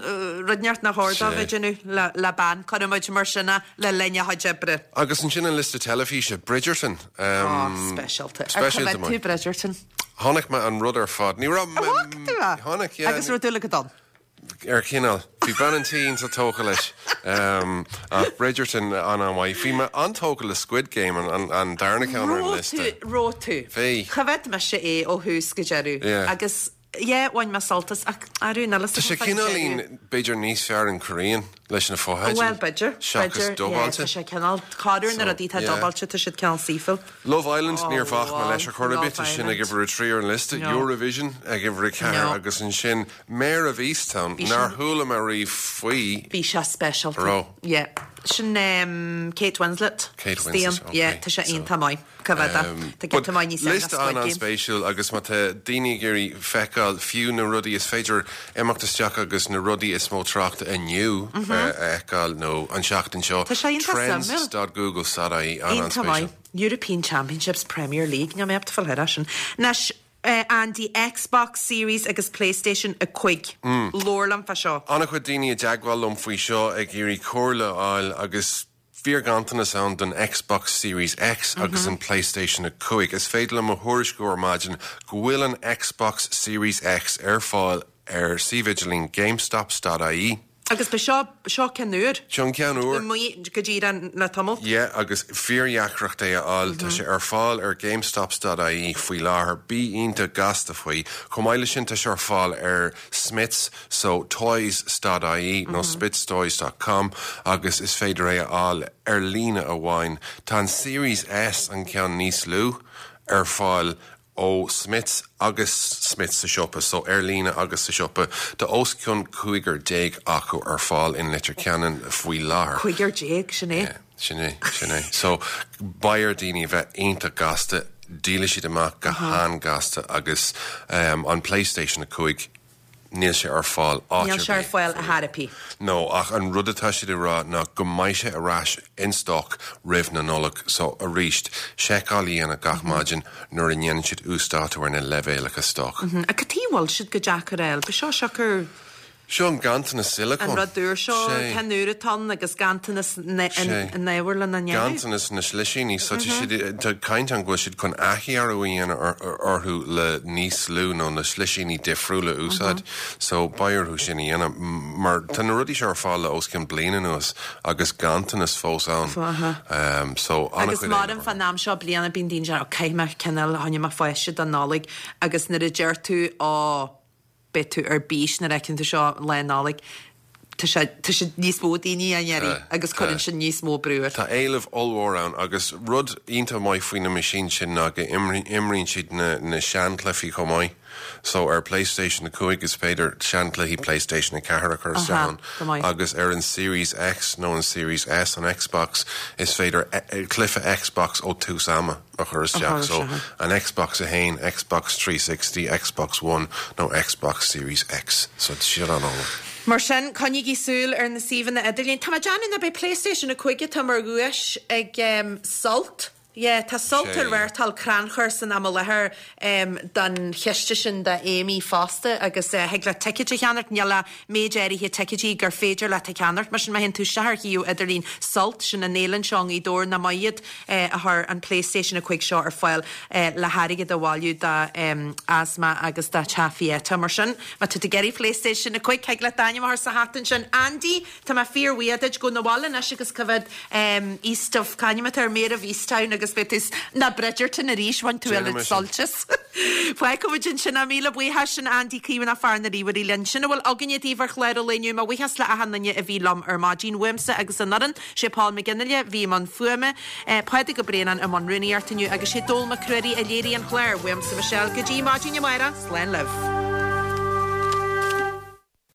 rud inteacht nár chóir dó bheith ag déanamh le bean, cuirfidh muid mar sin é, le linn a chuid oibre. Agus ansin an liosta teilifíse, Bridgerton. Oh, speisialta. Ar Speisialta, choimeád tú Bridgerton? Chonaic mé an rud ar fad. Ní raibh mé. An bhfaca tú é? Chonaic, yeah. Agus raibh dúil agat ann? Ar chineál. Bhí bean an tí iontach tógtha leis. Ach Bridgerton an-an-mhaith. Bhí mé an-tógtha le Squid Game, an darna ceann ar an liosta. Raibh tú? Bhí. Choimhéad mise é ó thús go deireadh. Yeah. Agus, yeah, bhain mé sult as ach arú níl 'fhios Tá sé cineáilín, b'fhéidir níos fearr in Korean leis na fotheidil. Bhuel, b'fhéidir. Seachas dubáilte. Tá sé cineál, corruair na rudaí atá dubáilte, tá siad cineál saoithiúil. Love Island, níor bhac mé leis ar chor ar bith, tá sin ag uimhir a trí ar an liosta. Eurovision ag uimhir a ceathair agus ansin Mare of Easttown, nár chuala mé riamh faoi. Bhí sé speisialta. Raibh? Yeah. Sin Kate Winslet. Kate Winslet, ok. Yeah, tá sé iontach maith. Cá bhfeadh é? Tá giota maith níos fearr ná Squid Game. Liosta an-an-spéisiúil agus má tá daoine ag iarraidh feiceáil fiú na rudaí, is féidir imeacht isteach agus na rudaí is mó tráchta inniu a fheiceáil nó an seachtain seo. Tá sé iontach suimiúil. Trends dot google dot ie, Iontach an-an-spéisiúil. maith. European Championships, Premier League, níl mé ábalta fáil thar sin. Anois. Andy, Xbox Series agus PlayStation 5. Labhair liom fá seo. An-chuid daoine i dteagmháil liom faoi seo ag iarraidh comhairle a fháil agus fíorghanntanas ann don Xbox Series X agus an PlayStation 5. Is féidir liom a thuairisciú ar maidin go bhfuil an Xbox Series X ar fáil ar suíomh idirlín GameStops.ie. Agus ba seo, seo ceann úr. Seo an ceann úr. Amuigh go díreach le tamall. Yeah, agus fíordheacracht é a fháil. Tá sé ar fáil ar GameStops.ie faoi láthair. Bí iontach gasta faoi. Chomh maith leis sin, tá sé ar fáil ar Smyths, so toys.ie nó smithstoys.com agus is féidir é a fháil ar líne amháin. Tá an Series S, an ceann níos lú, ar fáil ó Smyths agus Smyths sa siopa, so ar líne agus sa siopa. Tá os cionn 15 acu ar fáil in Leitir Ceanainn faoi láthair. 15, sin é? Yeah, sin é, sin é. So beidh ar daoine a bheith iontach gasta, díolfaidh siad amach go han-gasta agus an PlayStation 5, Níl sé ar fáil áit ar bith. Níl sé ar fáil a thairpí. No, ach an rud atá siad ag rá ná go mbeidh sé ar ais in stoc roimh na Nollag. So, arís, seiceáil a dhéanamh gach maidin nuair a ndéanann siad uasdátú ar na leibhéalacha stoc. Ach cad chuige a bhfuil siad chomh deacair a fháil? Ba seo siocair. Seo an ganntanas sileacóin. An rud úr seo, ceann úr atá ann agus ganntanas na n-ábhar lena ndéanamh. Ganntanas na slisíní. So tá siad, tá caint ann go bhfuil siad chun athdhearadh a dhéanamh orthu le níos lú nó na slisíní difriúla a úsáid. So beidh orthu sin a dhéanamh mar tá na rudaí seo ar fáil le os cionn bliain anuas agus ganntanas fós ann. So an-chuid. Agus mairim fán am seo bliana bíonn daoine ag déarfadh, caithfidh mé cineál, choinnigh mé pháiste don Nollaig agus nuair a deir tú, ó, beidh tú ar bís nuair a fheiceann tú seo Lá Nollag. Tá sé, tá sé níos mó daoine á iarraidh agus cuireann sin níos mó brú ort. Tá éileamh ollmhór ann agus rud iontach maith faoi na meaisín sin ná go imríonn siad na na seanchluichí chomh maith. So ar PlayStation 5 is féidir seanchluichí PlayStation 4 a chur isteach ann agus ar an Series X nó an Series S, an Xbox, is féidir cluiche Xbox ó tús ama. a chur isteach. So, an Xbox 1, Xbox 360, Xbox One nó Xbox Series X. So, tá siad an-álainn. Mar sin, coinnígí súil ar na suíomhanna idirlín. Tá mé ag déanamh nach b'é PlayStation 5 atá mar dhuais ag Sult. Yeah, tá Sult ag reáchtáil crannchur san am i láthair don chiste sin do Amy fosta agus thig leat ticéid a cheannacht. Níl ach méid áirithe ticéidí gur féidir leat a cheannacht. Mar sin, má théann tú isteach ar shuíomh idirlín Sult, sin an fhéile anseo i nGaoth Dobhair, nach maith iad a chuir an PlayStation 5 seo ar fáil le hairgead a bhailiú do asma agus do Teach Pieta. Mar sin, má tá tú ag iarraidh PlayStation 5, thig leat d'ainm a chur sa hata ansin. Andy, tá mé fíorbhuíoch duit. Gabh na bhaile anois agus coimhéad East of, c'ainm atá air, Mare of Easttown agus beidh tú ná Bridgerton arís, bhain tú oiread sult as. Fágfaidh muid ansin é. Míle buíochas sin Andy Caomhánach fear na ríomhairí linn. Sin a bhfuil againne daoibh ar chlár an lae inniu. Mo bhuíochas le achan duine a bhí liom ar maidin. Uaimse agus an fhoireann, sé Paul McGinley a bhí i mbun fuaime, Pádraig Ó Braonáin i mbun rúnaíochta inniu agus sé Dónall Mac Ruairí a léirigh an clár. Uaimse Michelle go dtí maidin amárach, slán libh.